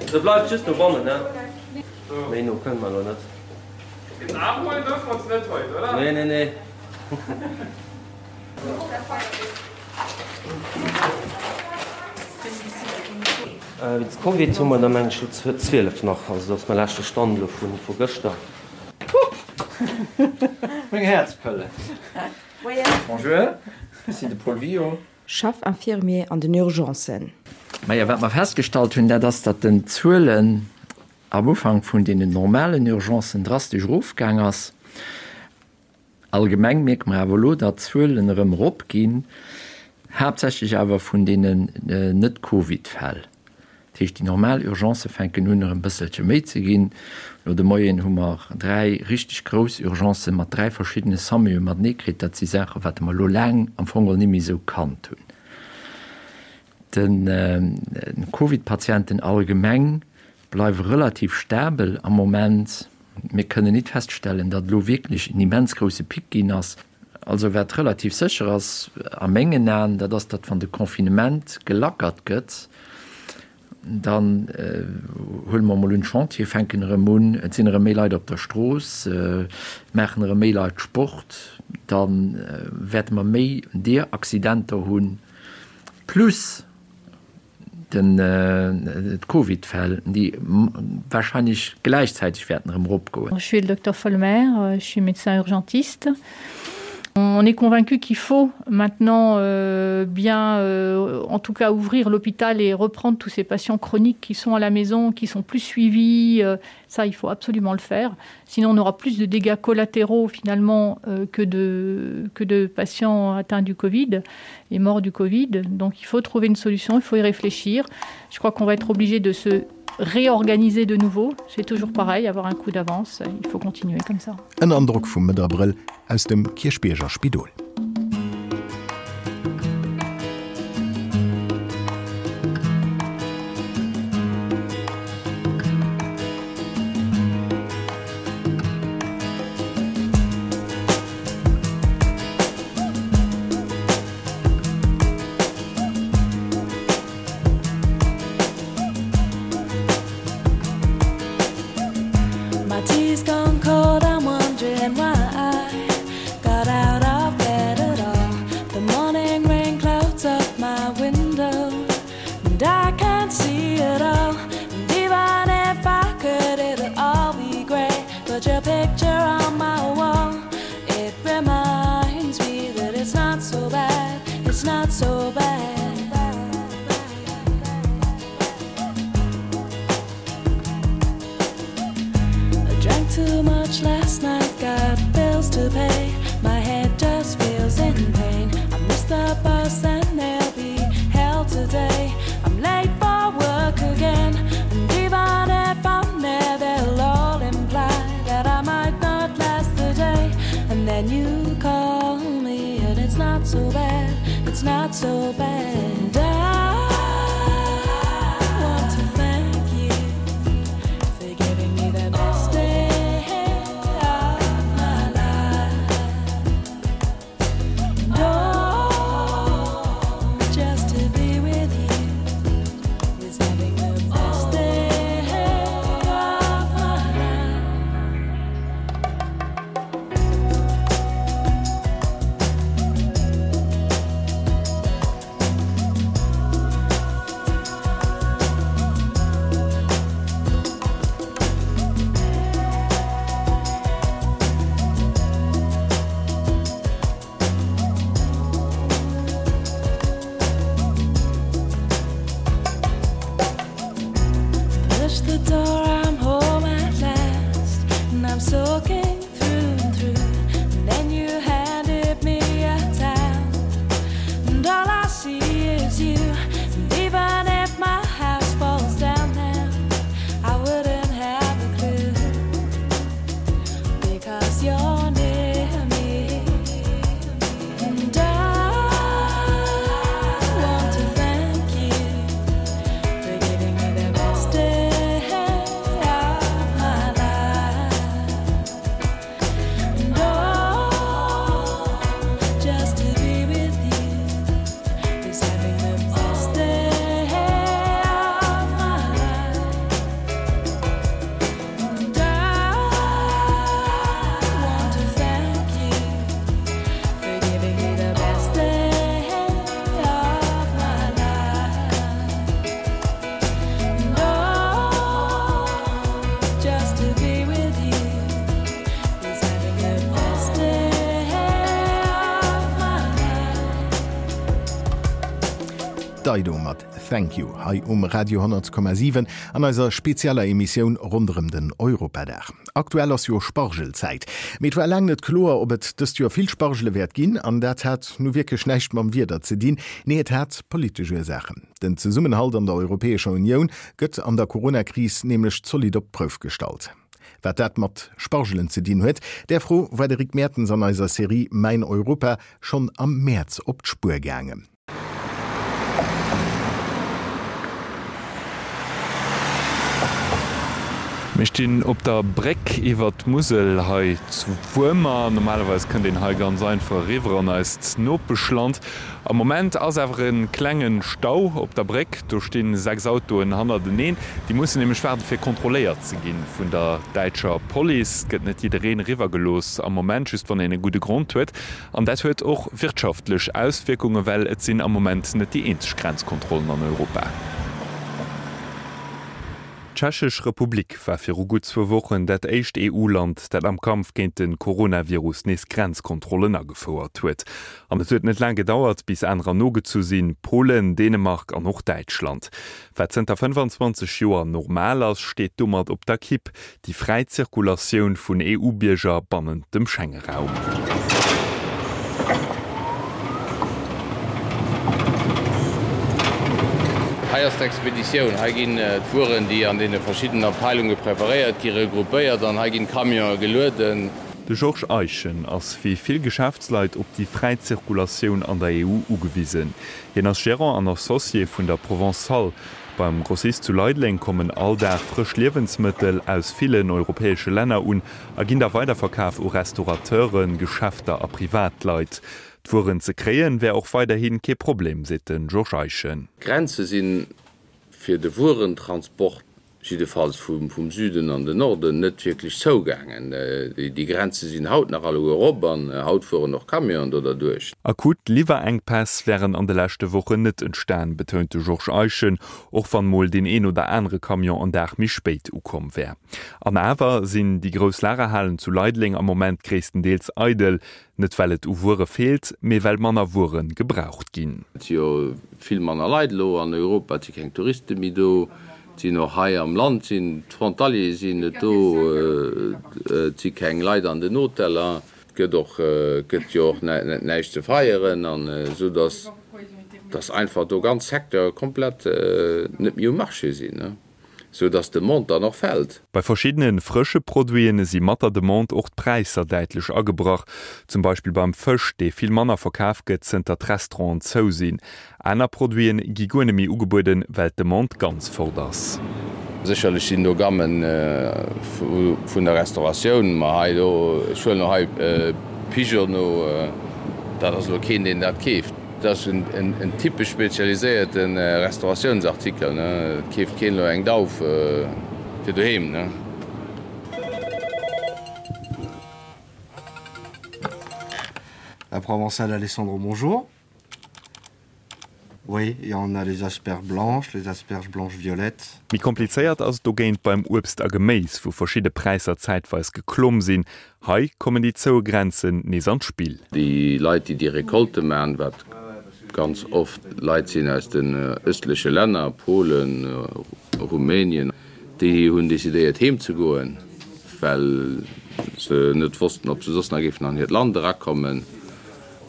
Se bleift just dobannen, ne? Méi no kënne mer elo net. Den Aarm huelen duerfe mer ons net haut, oder? Nee, nee, nee. Wéinst Covid hu mer der meng ech elo 12 nach, also dat ass mäi leschte Stand elo vu gëschter. Meng Häerzpëlle. Bonjour, ech sinn de Paul Wio. Chef Infirmier an den Urgencen. Majo, wat mer festgestallt hunn, dat ass, datt den Zuelen am Ufank vun deenen normalen Urgencen drastesch erofgaang ass. Allgemeng mierke mer awer elo, datt d'Zuelen erëm eropginn, haaptsächlech awer vun deenen Net-Covid-Fäll. Dat heescht, déi normal Urgencë fänken un erëm bësselche méi ze ginn. Elo de Moien hu mer 3 richteg grouss Urgencë mat 3 verschiddene SAMUe matenee kritt. Dat si Saachen, wat mer elo laang am Fong geholl ni méi esou kannt hunn. De Covid-Patienten allgemeng bleiwe relativ stabel am Moment. Mir kënnen nit feststellen, datt elo wierklech en immens grousse Pic ginn ass. Also wat relativ sécher ass a mengen Aen, dat ass, datt wann de Confinement gelackert gëtt, dann huele mer emol un, d'Chantiere fänken erëm un, et sinn erëm méi Leit op der Strooss, maachen erëm méi Leit Sport, da wäerte mer méi deer Accidenter hunn, plus den d'Covidfäll, déi wahrscheinlech gläichzäiteg wäerten erëm eropgoen. Je suis le docteur Folmer, je suis médecin urgentiste. On est convaincu qu'il faut maintenant euh, bien euh, en tout cas ouvrir l'hôpital et reprendre tous ces patients chroniques qui sont à la maison, qui sont plus suivis. Euh, ça il faut absolument le faire. Sinon on aura plus de dégâts collatéraux finalement euh, que, de, que de patients atteints du Covid et morts du Covid. Donc il faut trouver une solution, il faut y réfléchir. Je crois qu'on va être obligé de se réorganiser de nouveau. C'est toujours pareil, avoir un coup d'avance, il faut continuer comme ça. En Androck vum Mëtt Abrëll aus dem Kierchbierger Spidol. My tea's gone cold, I'm wondering why I got out of bed at all. The morning rain clouds up my window, and I can't see it all. And even if I could, it'll all be grey. But your picture on my wall, it reminds me that it's not so bad, it's not so bad. I drank too much last night, got bills to pay. My head just feels in pain. I miss the. so bad, it's not so bad. And I want to thank you for giving me the best day of my life. And oh, just to be with you is having the best day of my life. Push the door, I'm home at last, and I'm soaking through and through. And then you handed me a towel, and all I see is you. And even if my house falls down now, I wouldn't have a clue because you're near me. And I want to thank you for giving me the best day of my life. And oh, just to be with you is having the best day of my life. And I want to thank you for giving me the best day of my life. And oh, just to be with you is having the best day of my life. Dido mat Thank You hei um Radio 10,7 an eiser spezieller Emissioun ronderëm den Europadag. Aktuell ass jo Spargelzäit. Mee et war laang net kloer, ob et dëst Joer vill Spargele wäert ginn. An dat hat nu wierklech näischt mam Wieder ze dinn. Nee, et hat politesch Ursaachen. Den Zesummenhalt an der Europäescher Unioun gëtt an der Corona-Kris nämlech zolidd op d'Prouf gestallt. Wat dat mat Spargelen ze dinn huet, där Fro war de Rick Mertens an eiser Serie Mäin Europa schonn am Mäerz op d'Spuer gaangen. Mir stinn op der Bréck iwwer d'Musel hei zu Wuermer. Normalerweis kënnt een hei ganz einfach eriwwer an eist Nopeschland. Am Moment ass awer e klenge Stau op der Bréck. Do sti 6 Autoen hannerteneen. Déi mussen nämlech waarde fir kontrolléiert ze gi vun der däitscher Police. Et gëtt net jiddereen eriwwer gelooss am Moment, just wann een e gudde Grond huet. An dat huet och wirtschaftlech Auswierkungen, well et sinn am Moment net déi eenzeg Grenzkontrollen an Europa. D'Tschechesch Republik war viru gutt zwou Wochen dat éischt EU-Land, dat am Kampf géint de Coronavirus nees Grenzkontrollen agefouert huet. An et huet net laang gedauert, bis anerer nogezu sinn, Polen, Dänemark an och Däitschland. Wat zënter 25 Joer normal ass, steet domat op der Kipp, déi fräi Zirkulatioun vun EU-Bierger bannent dem Schengeraum. Hei ass d'Expeditioun. Hei ginn d'Wueren, déi an deene verschiddenen Abteilunge preparéiert gi, regroupéiert an hei ginn d'Camionë gelueden. De Georges Eischen ass wéi vill Geschäftsleit op déi fräi Zirkulatioun an der EU ugewisen. Hien ass Gerant an Associé vun der Provençale. Beim Grossist zu Leideleng kommen all Dag frësch Liewensmëttel aus villen europäesche Länner un a ginn da weiderverkaf u Restaurateuren, Geschäfter a Privatleit. D'Wueren ze kréien, wär och weiderhi kee Problem, seet de Georges Eischen. D'Grenze si fir de Wuerentransport jiddefalls vum Süden an den Norden, net wierklech zougaangen. Déi Grenze sinn haut nach alleguer erop an haut fueren och Camionen do derduerch. Akut Liwwerenkpäss wären an de leschte Wochen net entstan, betount de Georges Eischen, och wann mol deen een oder anere Camion en Dag méi spéit ukomm wär. An awer sinn déi grouss Lagerhalen zu Leideleng am Moment gréisstendeels eidel. Net well et u Wuere feelt, mee well manner Wuere gebraucht ginn. Et si jo vill manner Leit elo an Europa, et si keng Touriste méi do, et sinn och hei am Land sinn d'Frontaliere sinn net do, et si keng Leit an den Hoteller, et gëtt och, et gëtt jo och näischt ze feieren an esou datt, datt einfach do ganz Secteure komplett net méi um Marché sinn. Sou dass d'Demande dann och fält. Bei verschiddene frësche Produiten si mat der Demande och d'Präisser däitlech agebrach. Zum Beispill beim Fësch, dee vill manner verkaf gëtt, zënter d'Restauranten zou sinn. Aner Produiten gi guer net méi ugebueden, well d'Demande ganz fort ass. Sécherlech sinn do Gammen vun der Restauratioun, ma hei do, ech huelen elo hei Pigeonneau, dat ass elo keen, deen dat keeft. Dat ass en typesch spezialiséierte Restauratiounsartikel, et keeft keen elo eng Dauf fir doheem. La Provençale Alessandro, bonjour. Oui, et on a les asperges blanches, les asperges blanches violettes. Méi komplizéiert ass et dogéint beim Uebst a Geméis, wou verschidde Präisser zäitweis geklomm sinn. Hei kommen déi zoue Grenzen nees an d'Spill. Déi Leit, déi déi Recolte maachen, wat ganz oft Leit sinn aus den ëstleche Länner, Polen, Rumänien, déi hunn decidéiert heem ze goen, well se net wossten, ob se soss nach géifen an hiert Land erakommen.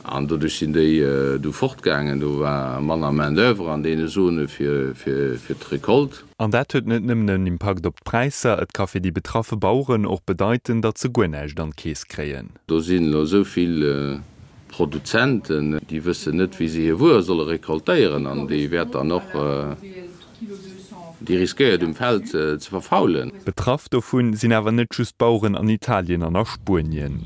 An doduerch sinn déi du fortgaangen. Do war manner Main d'oeuvre an deene Zone fir d'Recolte. An dat huet net nëmmen en Impakt op d'Präisser, et ka fir déi betraffe Baueren och bedeiten, datt se guer näischt an d'Keess kréien. Do sinn elo esou vill Produzenten, déi wëssen net, wéi se hir Wuer solle recoltéieren an déi wäert dann och. Déi riskéiert um Feld ze verfaulen. Betraff dovun sinn awer net just d'Baueren an Italien an a Spuenien.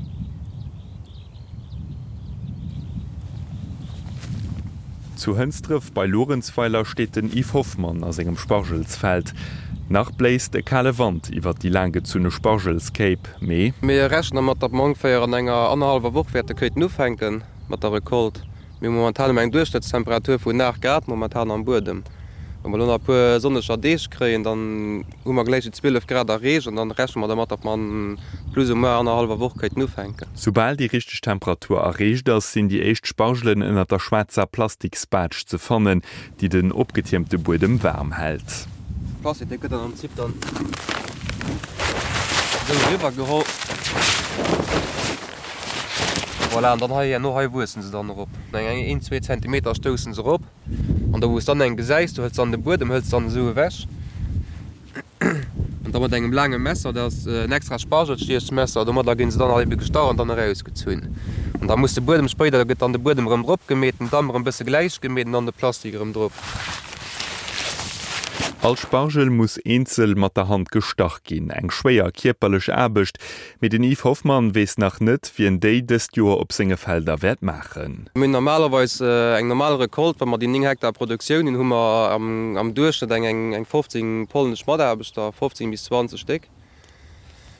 Zu Hënsdref bei Luerenzweiler steet den Yves Hoffmann a sengem Spargelsfeld. Nach bléist e kale Wand iwwer déi laanggezunne Spargelskéip, mee. Mir rechnen dermat, datt mer ongeféier an enger annerhallwer Woch wäerte kéinten ufänke mat der Recolte. Mir hu momentan ëm eng Duerchschnëttstemperatur vun 8 Grad momentan am Buedem. Wa mer elo nach e puer sonneger Deeg kréien, dann hu mer gläich déi 12 Grad erreecht an dann rechne mer dermat, datt mer an plus ou moins annerhallwer Woch kéinten ufänken. Soubal déi richteg Temperatur erreecht ass, sinn déi éischt Spargelen ënnert der schwaarzer Plastiksbaatsch ze fannen, déi den opgetiermte Buedem waarm hält. Plastik, dee gëtt dann am Prinzip dann esou eriwwer geholl. Voilà, an dann hei herno hei wuessen se dann erop. No eng een, zwee Zentimeter stoussen se erop. An da wou s dann eng gesäis, du hëls dann de Buedem hëls dann esou ewech. An da mat engem laange Messer, dat ass en extra Spargelstiechmesser, domadder ginn se dann all ebe gestach an dann erausgezunn. An da muss de Buedem spéider, da gëtt dann de Buedem erëm drop gemeet, den Damm erëm bësse gläich gemeet an dann de Plastik erëm drop. All Spargel muss eenzel mat der Hand gestach ginn, eng schwéier kierperlech Aarbecht, Mee den Yves Hoffmann weess nach net, wien déi dëst Joer op senge Felder wäert maachen. Mir hunn normalerweis eng normal Recolte, wa mer déi 9 Hektar Produktioun hunn, hu mer am Duerchschnëtt eng 15 polnesch Mataarbechter, 15 bis 20 Stéck.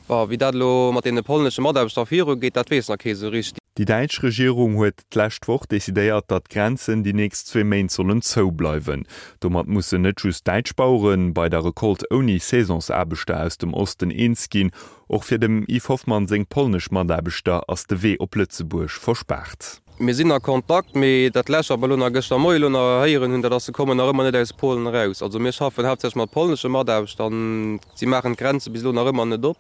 Bon, wéi dat elo mat deene polnesche Mataarbechter virugeet, dat weess nach kee sou richteg. Déi däitsch Regierung huet d'lescht Woch decidéiert, datt d'Grenzen déi nächst zwee Méint sollen zou bleiwen. Domat mussen net just däitsch Bauere bei der Recolte ouni Saisonsaarbechter aus dem Osten eens ginn. Och fir dem Yves Hoffmann seng polnesch Mataarbechter ass de Wee op Lëtzebuerg verspaart. Mir sinn a Kontakt, mee dat lescht, wat mer elo nach gëschter Moie elo nach héieren hunn, dat ass, se kommen nach ëmmer net aus Polen eraus. Also mir schaffen haaptsächlech mat polnesche Mataarbechter an si maachen d'Grenze bis elo nach ëmmer net op.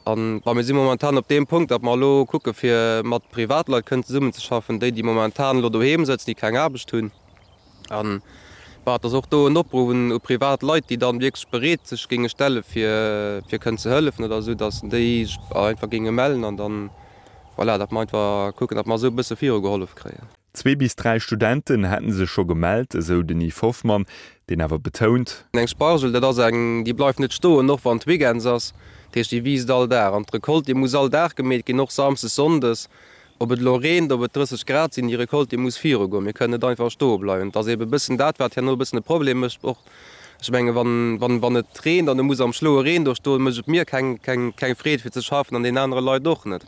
An, bon, mir si momentan op deem Punkt, datt mer elo kucke fir mat Privatleit kënnen zesummenzeschaffen, déi, déi momentan elo doheem sëtzen, déi keng Aarbecht hunn. An, bon, et ass och do en Opruff un u privat Leit, déi dann wierklech bereet sech géinge stelle fir fir kënnen ze hëllefen oder esou, datt déi sech einfach géinge mellen an dann, voilà, datt mer einfach kucken, datt mer esou e bësse virugehollef kréien. Zwee bis dräi Studenten hätte sech scho gemellt, esou den Yves Hoffmann, deen awer betount. Eng Spargel, dat ass eng, déi bleift net stoen, och wann et Weekends ass. Dat heescht, déi wiisst all Dag. An d'Recolte, déi muss all Dag gemeet ginn, och samsdes, sonndes. Ob et elo reent, ob et 30 Grad sinn, déi Recolte, déi muss virugoen. Mir kënnen net einfach stoe bleiwen. Et ass eebe e bëssen dat, wat herno e bëssen e Problem mécht och. Ech menge wann, wann, wann et reent an e muss am schloue Reen do stoen, mécht et mir keng, keng, keng Freed fir ze schaffen an deenen anere Leit och net.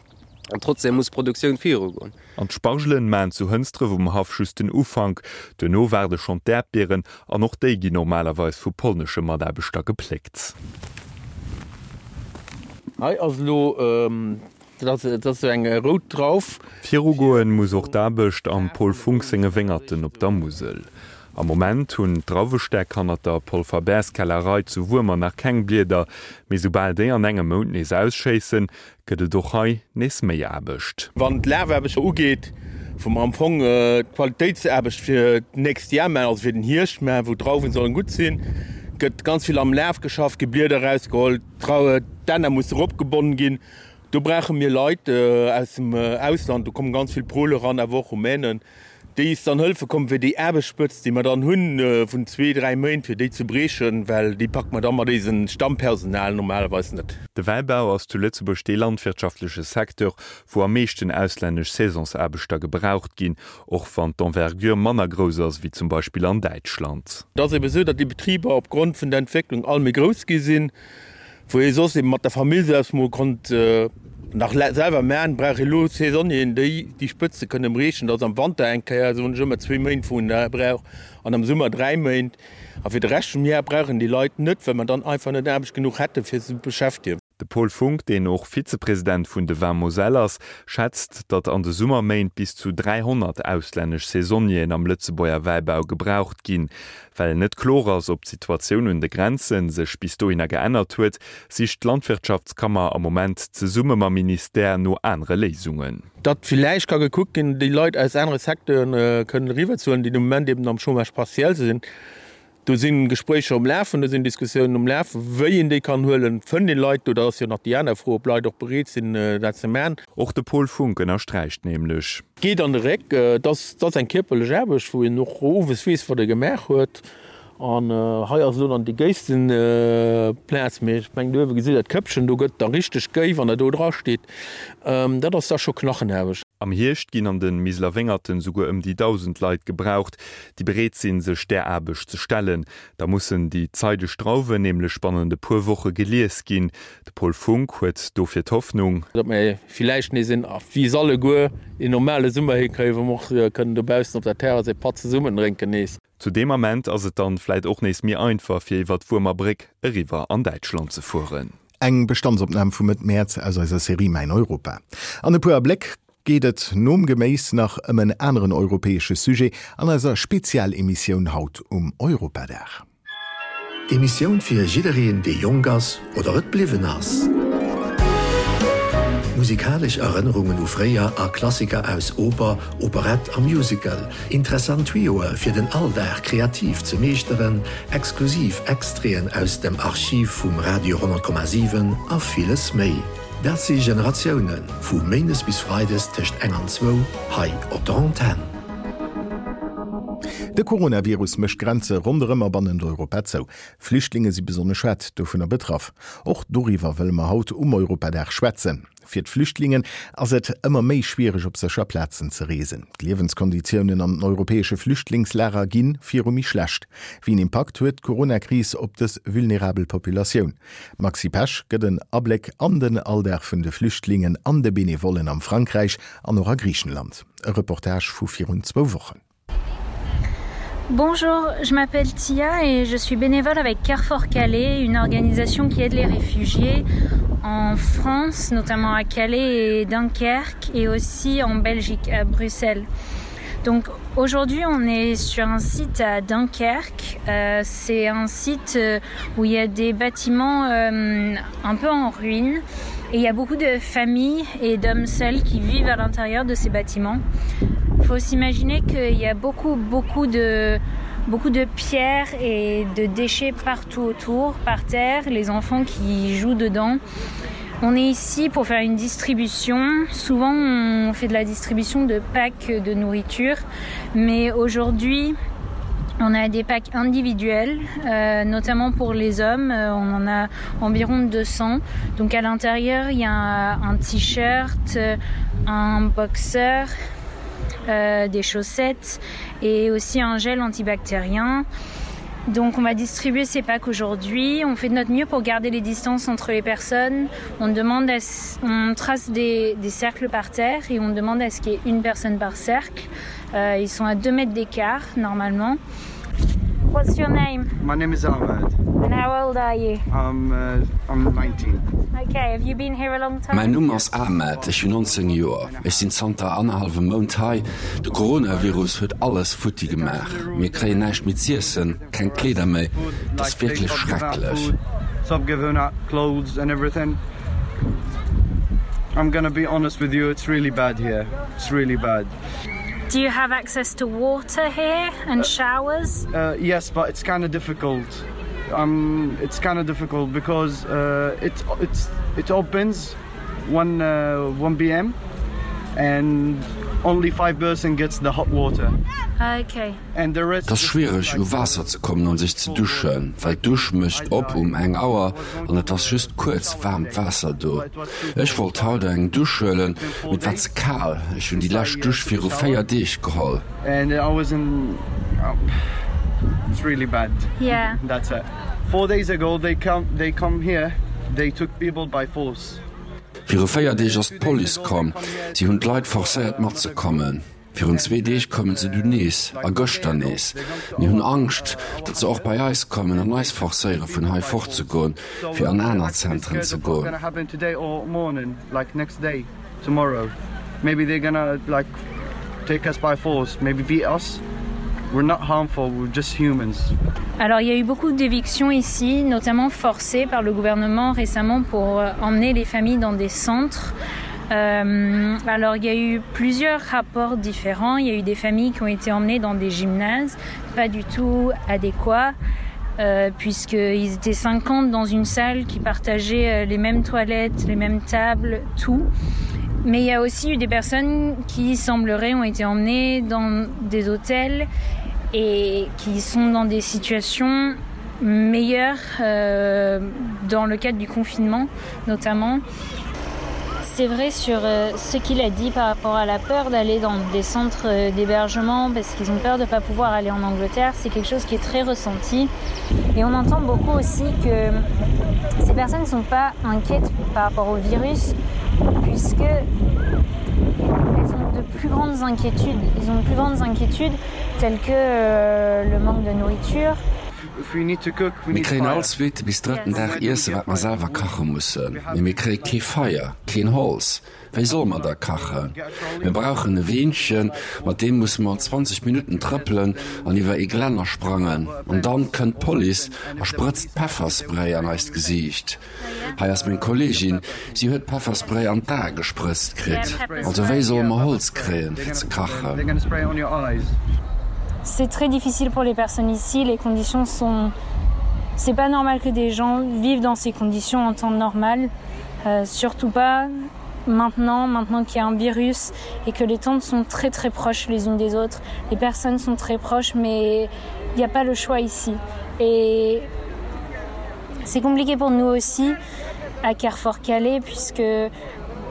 An trotzdem muss d'Produktioun virugoen. An d'Spargelen maachen zu Hënsdref um Haff just den Ufank. Duerno waarde schonn d'Äerdbieren an och déi ginn normalerweis vu polnesche Mataarbechter gepléckt. Hei ass elo Dat ass esou eng rout Drauf. Virugoen muss och d'Aarbecht am Paul Funck senge Wéngerten op der Musel. Am Moment hunn d'Drauwestäck hannert der Paul Faber's Kellerei zu Wuermer nach keng Blieder, mee soubal déi an engem Mount nees ausschéissen, gëtt et och hei nees méi Aarbecht. Wann d'Lafaarbecht ugeet, wou mer am Fong d'Qualitéitsaarbecht fir d'nächst Jar maachen, also fir den Hierscht maachen, wou d'Drauwen sollen gutt sinn. Gëtt ganz vill am Laf geschafft, gi Blieder erausgeholl, d'Dänner musse eropgebonnen ginn. Do brauche mir Leit aus dem Ausland, do komme ganz vill Pole eran, awer och Rumänen, déi is dann hëlfe kommen, fir déi Aarbechtsspëtzt, déi mer dann hunn vun zwee, dräi Méint, fir déi ze briechen, well déi packe mer da mat eisem Stammpersonal normalerweis net. De Wäibau ass zu Lëtzebuerg dee landwirtschaftleche Secteur, wou am meeschten auslännesch Saisonsaarbechter gebraucht ginn, och wann d'Envergure manner grouss ass ewéi zum Beispill an Däitschland. Et ass ebe sou, datt déi Betriber opgrond vun der Entwécklung all méi grouss gi sinn. Wou ee soss eben mat der Famill selbst mol konnt nach selwer man, brauch ee lo Saisonnieren, déi déi Spëtze kënnen briechen. Dat ass am Wanter eng Kéier, soen ech ëmmer, zwéi Méint, wou een dat brauch, an am Summer dräi Méint. A fir de Rescht vum Jar brauch een déi Leit net, well mer dann einfach net Aarbecht genuch hätten, fir se ze beschäftegen. De Paul Funck, deen och Vizepresident vun de Vins Moselle ass, schätzt, datt an de Summerméint bis zu 300 auslännesch Saisonnieren am Lëtzebuerger Wäibau gebraucht ginn. Well net kloer ass, ob d'Situatioun un de Grenze sech bis dohinner geännert huet, sicht d'Landwirtschaftskammer am Moment zesumme mam Ministère no anere Léisungen. Datt villäicht ka gekuckt ginn, déi Leit aus anere Secteuren kënnen eriwwerzehuelen, déi de Moment eben am Chômage partiel sinn. Do si Gespréicher um Lafen, do sinn Diskussiounen um Lafen, wéi een déi kann huelen. Fënnt een Leit do? Dat ass jo nach déi aner Fro, ob Leit och bereet sinn, dat ze maachen. Och de Paul Funck ënnersträicht nämlech. Geet an de Réck. Et ass eng kierperlech Aarbecht, wou een och owes weess, wat e gemaach huet. An hei ass elo dann déi géisten Plaz, mee ech mengen, do uewe gesitt Der d'Këppchen, do gëtt da richteg géi, wann Der do dra steet. Dat ass da scho Knachenaarbecht. Am Hierscht ginn an de Miseler Wéngerten souguer ëm déi 1.000 Leit gebraucht, déi bereet sinn, sech där Aarbecht ze stellen. Da mussen déi zeideg Drauwen nämlech bannent e puer Woche gelies ginn. De Paul Funck huet dofir d'Hoffnung. Datt mir villäicht nees een, wéi se alleguer, een normale Summer hikréien, wou mer och kënnen dobaussen op der Terrass ee Patt zesummen drénken nees. Zu deem Ament ass et dann vläit och nees méi einfach fir iwwer d'Wuermer Bréck eriwwer an Däitschland ze fueren. Eng Bestandsopnam vu Mëtt Mäerz aus eiser Serie Mäin Europa. An e puer Abléck geet et nom Geméis nach ëm en aneren europäesche Sujet an eiser Spezialemissioun haut um Europadag. D'Emissioun fir jiddereen, dee jonk ass oder et bliwwen ass. Musikalesch Erënnerungen u fréier a Klassiker aus Oper, Operett a Musical, interessant Tuyauxe fir den Alldag kreativ ze meeschteren, exklusiv Extraiten aus dem Archiv vum Radio 10,7 a villes méi. Dat si Generatiounen, vu méindes bis freides tëscht eng an zwou hei op der Antenn. De Coronavirus mécht d'Grenze ronderëm a bannent Europa zou. Flüchtlinge si besonnesch haart dovunner betraff. Och doriwwer wëlle mer haut um Europadag schwätzen. Fir d'Flüchtlingen ass et ëmmer méi schwiereg op sécher Plazen ze reesen. D'Liewenskonditiounen an den europäesche Flüchtlingslager gi viru méi schlecht. Wéi en Impakt huet d'Coronakris op dës vulnerabel Populatioun? D'Maxi Pesch gëtt en Abléck an den Alldag vun de Flüchtlingen an de Benevollen am Frankräich an och a Griichenland. E Reportage vu virun zwou Wochen. Bonjour, je m'appelle Tia et je suis bénévole avec Carrefour Calais, une organisation qui aide les réfugiés en France, notamment à Calais et Dunkerque et aussi en Belgique à Bruxelles. Donc aujourd'hui on est sur un site à Dunkerque. Euh, C'est un site euh, où il y a des bâtiments euh, un peu en ruine et il y a beaucoup de familles et d'hommes seuls qui vivent à l'intérieur de ces bâtiments. Il faut s'imaginer qu'il y a beaucoup beaucoup de beaucoup de pierres et de déchets partout autour, par terre, les enfants qui jouent dedans. On est ici pour faire une distribution. Souvent on fait de la distribution de packs de nourriture, mais aujourd'hui, on a des packs individuels, euh, notamment pour les hommes, euh, on en a environ 200. Donc à l'intérieur, il y a un, un t-shirt, un boxeur, euh, des chaussettes et aussi un gel antibactérien. Donc on va distribuer ces packs aujourd'hui. On fait de notre mieux pour garder les distances entre les personnes. On demande à, on trace des, des cercles par terre et on demande à ce qu'il y ait une personne par cercle. Euh, ils sont à 2 mètres d'écart normalement. What's your name? My name is Ahmed. And how old are you? I'm, uh, I'm 19. Okay, have you been here a long time? Mäin Numm ass Ahmed, ech hunn 19 Joer. Ech sinn zanter annerhallwem Mount hei. De Coronavirus huet alles futti gemaach. Mir kréien näischt méi z'iessen, keng Kleeder méi. Et ass wierklech schrecklech. Do you have access to water here and showers? Uh, yes, but it's kind of difficult. Um, it's kind of difficult because uh, it, it's, it opens 1, uh, 1 p.m. and only 5 person gets the hot water. Okay. Et ass schwiereg u Waasser ze kommen an sech ze duschen, well d'Dusch mécht op um eng Auer an et ass just kuerz waarmt Waasser do. Ech wollt haut eng Dusch huelen, mee et war ze kal. Ech hunn déi lescht Dusch viru 4 Deeg geholl. Viru 4 Deeg ass d'Police komm, si hunn d'Leit forcéiert matzekommen. Virun zwee Deeg koumen se dunn nees, a gëschter nees. Mir hunn Angscht, datt se och bei eis kommen an eis forcéiere vun hei fortzegoen, fir an aner Zentren ze goen. Alors il y a eu beaucoup d'évictions ici, notamment forcées par le gouvernement récemment pour euh, emmener les familles dans des centres. Euh, alors il y a eu plusieurs rapports différents. Il y a eu des familles qui ont été emmenées dans des gymnases, pas du tout adéquats. Euh, puisqu'ils étaient 50 dans une salle qui partageait euh, les mêmes toilettes, les mêmes tables, tout. Mais il y a aussi eu des personnes qui sembleraient ont été emmenées dans des hôtels et qui sont dans des situations meilleures euh, dans le cadre du confinement notamment. C'est vrai sur euh, ce qu'il a dit par rapport à la peur d'aller dans des centres euh, d'hébergement parce qu'ils ont peur de ne pas pouvoir aller en Angleterre, c'est quelque chose qui est très ressenti. Et on entend beaucoup aussi que ces personnes ne sont pas inquiètes par rapport au virus puisque elles ont de plus grandes inquiétudes. Ils ont de plus grandes inquiétudes telles que euh, le manque de nourriture. Mir kréien all zweete bis drëtten Dag Iesse wat mer selwer kache mussen, mee mir kréie kee Feier, keen Holz. Wéi solle mer da kachen? Mir brauchen e Weenchen, mat deem musse mer 20 Minutten trëppelen an iwwer ee Glänner sprangen. An dann kënnt d'Police a sprëtzt Pefferspray an eist Gesiicht. Hei ass meng Kolleegin, si huet Pefferspray an d'Ae gesprëtzt kritt. Also wéi solle mer Holz kréien, fir ze kachen? C'est très difficile pour les personnes ici, les conditions sont c'est pas normal que des gens vivent dans ces conditions en temps normal, euh, surtout pas maintenant, maintenant qu'il y a un virus et que les tentes sont très très proches les unes des autres. Les personnes sont très proches mais il n'y a pas le choix ici. Et c'est compliqué pour nous aussi à Carrefour Calais puisque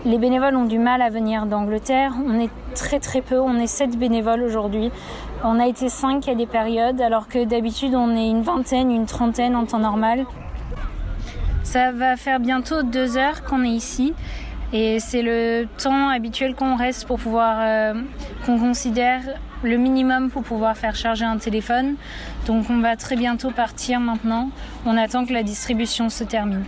les bénévoles ont du mal à venir d'Angleterre. On est très très peu, on est sept bénévoles aujourd'hui. On a été cinq à des périodes alors que d'habitude on est une vingtaine, une trentaine en temps normal. Ça va faire bientôt deux heures qu'on est ici et c'est le temps habituel qu'on reste pour pouvoir euh, qu'on considère le minimum pour pouvoir faire charger un téléphone. Donc on va très bientôt partir maintenant. On attend que la distribution se termine.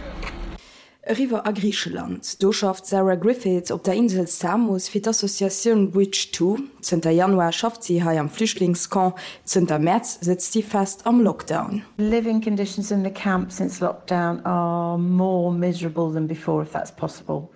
Eriwwer a Griicheland. Do schafft d'Sarah Griffiths op der Insel Samos fir d'Associatioun Bridge To. Zënter Januar schafft si hei am Flüchtlingscamp, zënter Mäerz sëtzt si fest am Lockdown. Living conditions in the camp since lockdown are more miserable than before, if that's possible.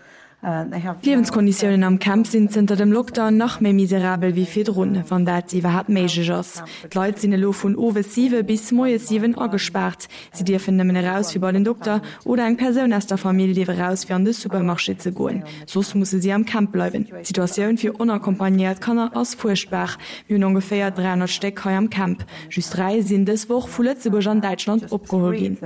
D'Liewenskonditiounen am Camp sinn zënter dem Lockdown nach méi miserabel wéi virdrun, wann dat iwwerhaapt méiglech ass. D'Leit sinn elo vun owes 7 bis moies 7 agespaart. Si dierfen nëmmen eraus fir bei den Dokter oder eng Persoun aus der Famill dierf eraus fir an de Supermarché ze goen. Soss musse si am Camp bleiwen. D'Situatioun fir onaccompagnéiert Kanner ass fuerchtbar. Mir hunn ongeféier 300 Stéck hei am Camp. Just 3 sinn dës Woch vu Lëtzebuerg an Däitschland opgeholl ginn.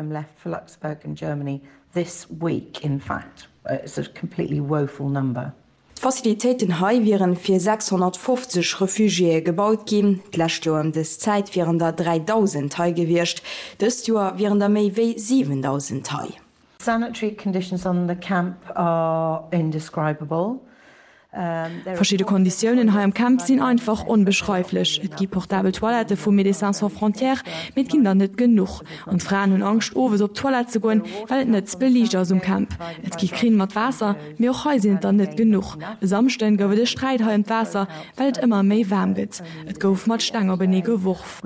This week in fact it's a completely woeful number. D'Facilitéiten hei wieren fir 650 Refugiéë gebaut ginn. D'lescht Joer ëm dës Zäit wieren der 3.000 hei gewiescht. Dëst Joer wieren der méi wéi 7.000 hei. Sanitary conditions on the camp are indescribable. Verschidde Konditiounen hei am Camp sinn einfach onbeschreiflech. Et gi portabel Toilettë vu Médecins Sans Frontières, mee et ginn der net genuch. An d'Fraen hunn Angscht owes op d'Toilette ze goen, well et net beliicht ass um Camp. Et gi Krinn mat Waasser, mee och hei sinn et der net genuch. E Samschden gouf et e Sträit hei ëm d'Waasser, well et ëmmer méi waarm gëtt. Et gouf mat Steng openee geworf.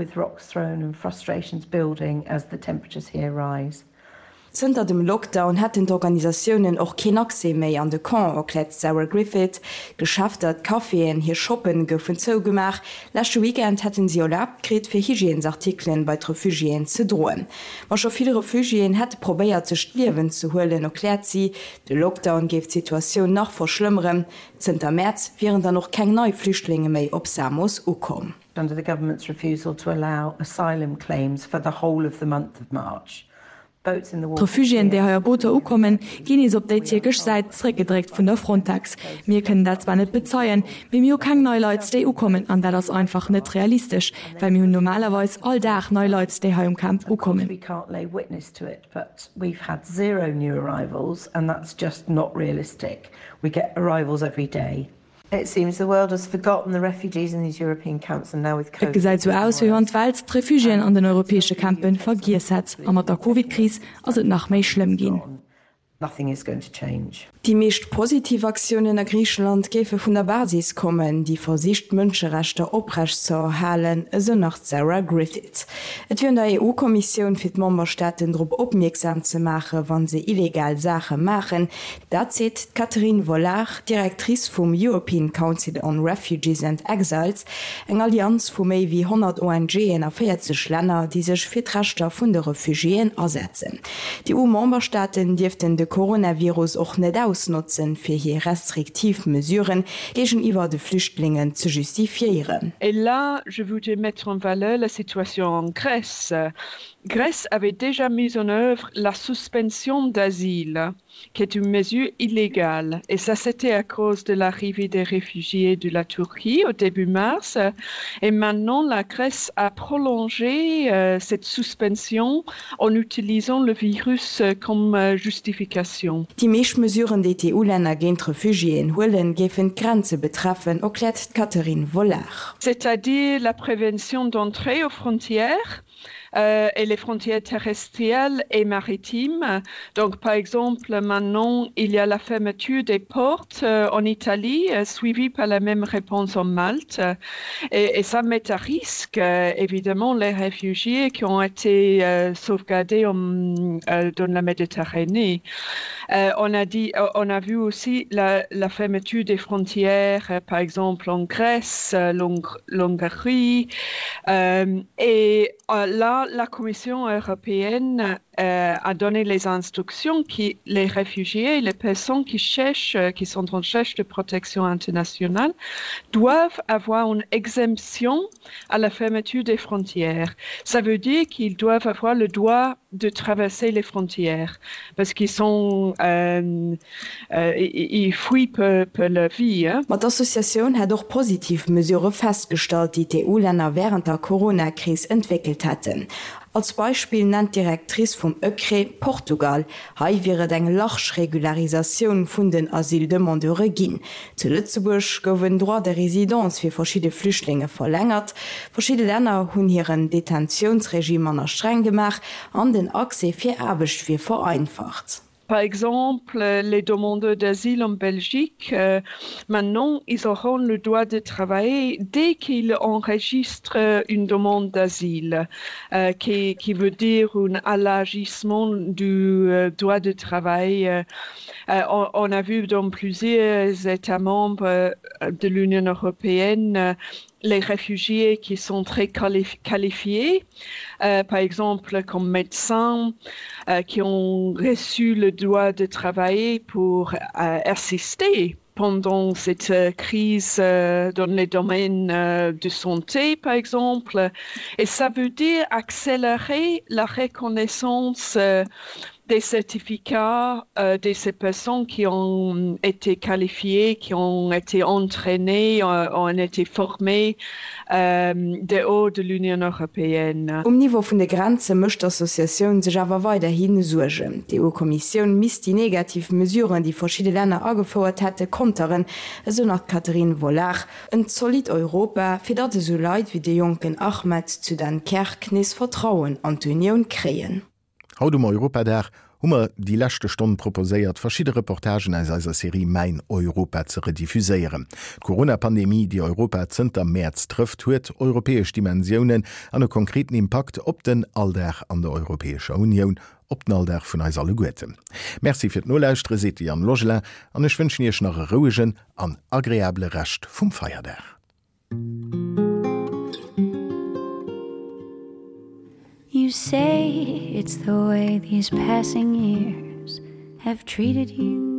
Zënter dem Lockdown hätten d'Organisatiounen och keen Accès méi an de Camp, erkläert d'Sarah Griffith. D'Geschäfter, d'Caféen, hir Shoppen goufen zougemaach. Leschte Weekend hätten si erlaabt kritt, fir Hygiènesartikelen bei d'Refugiéen ze droen. Ma scho vill Refugiéen hätte probéiert, sech d'Liewen ze huelen, erkläert si. De Lockdown géif d'Situatioun nach verschlëmmeren. Zënter Mäerz wieren dann och keng nei Flüchtlinge méi op Samos ukomm. Under the government's refusal to allow asylum claims for the whole of the month of March, boats in the water. D'Refugiéen, déi hei a Booter ukommen, ginn nees op déi tierkesch Säit zeréckgedréckt vun der Frontex. Mir kënnen dat zwar net bezeien, mee mir hu keng nei Leit, déi ukommen an dat ass einfach net realistesch, well mir hunn normalerweis all Dag nei Leit, déi hei um Camp ukommen. But we've had zero new arrivals and that's just not realistic. We get arrivals every day. It seems the world has forgotten the refugees in these European camps and now with Et gesäit sou aus, wéi wann d'Welt d'Refugiéen an den europäesche Campen vergiess hätt. A mat der Covid-Kris ass et nach méi schlëmm ginn. Nothing is going to change. Déi meescht positiv Aktiounen a Griicheland géife vun der Basis kommen, déi versicht d'Mënscherechter oprecht ze erhalen, esou nach d'Sarah Griffiths. Et wier un der EU-Kommissioun, fir d'Memberstaaten drop opmierksam ze maache wa se illegal Saache maachen. Dat seet d'Catherine Vollard, Directrice vum European Council on Refugees and Exiles, eng Allianz vu méi wéi 100 ONGen a 40 Länner, déi sech fir d'Rechter vun de Refugiéen asetzen. D'EU-Memberstaaten dierften de Coronavirus och net ausnotzen, fir hir restriktiv Mesuren géigeniwwer de Flüchtlingen ze justifiéieren. Et là, je voudrais mettre en valeur la situation en Grèce. Grèce avait déjà mis en œuvre la suspension d'asile qui est une mesure illégale. Et ça, c'était à cause de l'arrivée des réfugiés de la Turquie au début mars. Et maintenant, la Grèce a prolongé euh, cette suspension en utilisant le virus euh, comme euh, justification. Déi meescht Mesuren, déi d'EU-Länner géint d'Refugiéen huelen, géifen d'Grenze betreffen, erkläert d'Catherine Vollard. C'est-à-dire la prévention d'entrée aux frontières, euh, et les frontières terrestrielles et maritimes. Donc par exemple, maintenant, il y a la fermeture des portes euh, en Italie, euh, suivie par la même réponse en Malte. Et, et ça met à risque, euh, évidemment, les réfugiés qui ont été euh, sauvegardés en, euh, dans la Méditerranée. Euh, on, a dit, euh, on a vu aussi la, la fermeture des frontières, euh, par exemple en Grèce, euh, l'Hongrie. Euh, et euh, là, la Commission européenne euh, a donné les instructions qui les réfugiés, les personnes qui cherchent, euh, qui sont en recherche de protection internationale, doivent avoir une exemption à la fermeture des frontières. Ça veut dire qu'ils doivent avoir le droit de traverser les frontières parce qu'ils sont euh, euh, ils fuient peu, peu leur vie. Hein. Ma d'Associatioun hätt och positiv Mesurë festgestallt, déi d'EU-Länner wärend der Corona-Kris entwéckelt hätten. Als Beispill nennt d'Directrice vum ÖCRE Portugal. Hei wier et eng large Regularisatioun vun den Asyldemandeure ginn. Zu Lëtzebuerg gouf en Droit de résidence fir verschidde Flüchtlinge verlängert. Verschidde Länner hunn hiren Detentiounsregime manner streng gemaach an den Accès fir Aarbecht wier vereinfacht. Par exemple, les demandeurs d'asile en Belgique, euh, maintenant, ils auront le droit de travailler dès qu'ils enregistrent une demande d'asile, euh, qui, qui veut dire un allagissement du euh, droit de travail. Euh, euh, on, on a vu dans plusieurs États membres euh, de l'Union européenne euh, les réfugiés qui sont très qualifiés, euh, par exemple comme médecins euh, qui ont reçu le droit de travailler pour euh, assister pendant cette euh, crise euh, dans les domaines euh, de santé par exemple et ça veut dire accélérer la reconnaissance euh, des certificats euh, de ces personnes qui ont été qualifiées, qui ont été entraînées, euh, ont été formées euh, dehors de l'Union européenne. Um Niveau vun de Grenze mécht d'Associatioun sech awer weiderhi Suergen. D'EU-Kommissioun misst déi negativ Mesuren, déi verschidde Länner agefouert hätte, konteren, esou nach d'Catherine Vollard. En zolidd Europa, fir datt esou Leit wéi de jonken Ahmed zu Dunkerque nees Vertrauen an d'Unioun kréien. Haut um Europadag hu mer déi leschte Stonn proposéiert, verschidde Reportagen aus eiser Serie Mäin Europa ze rediffuséieren. D'Corona-Pandemie, déi Europa zënter Mäerz trëfft, huet europäesch Dimensiounen an e konkreten Impakt op den Alldag an der Europäescher Unioun. op den Alldag vun eis alleguerten. Merci fir d'Nolauschtere seet de Yann Logelin an ech wënschen Iech nach e rouegen an agreabele Rescht vum Feierdag. You say it's the way these passing years have treated you.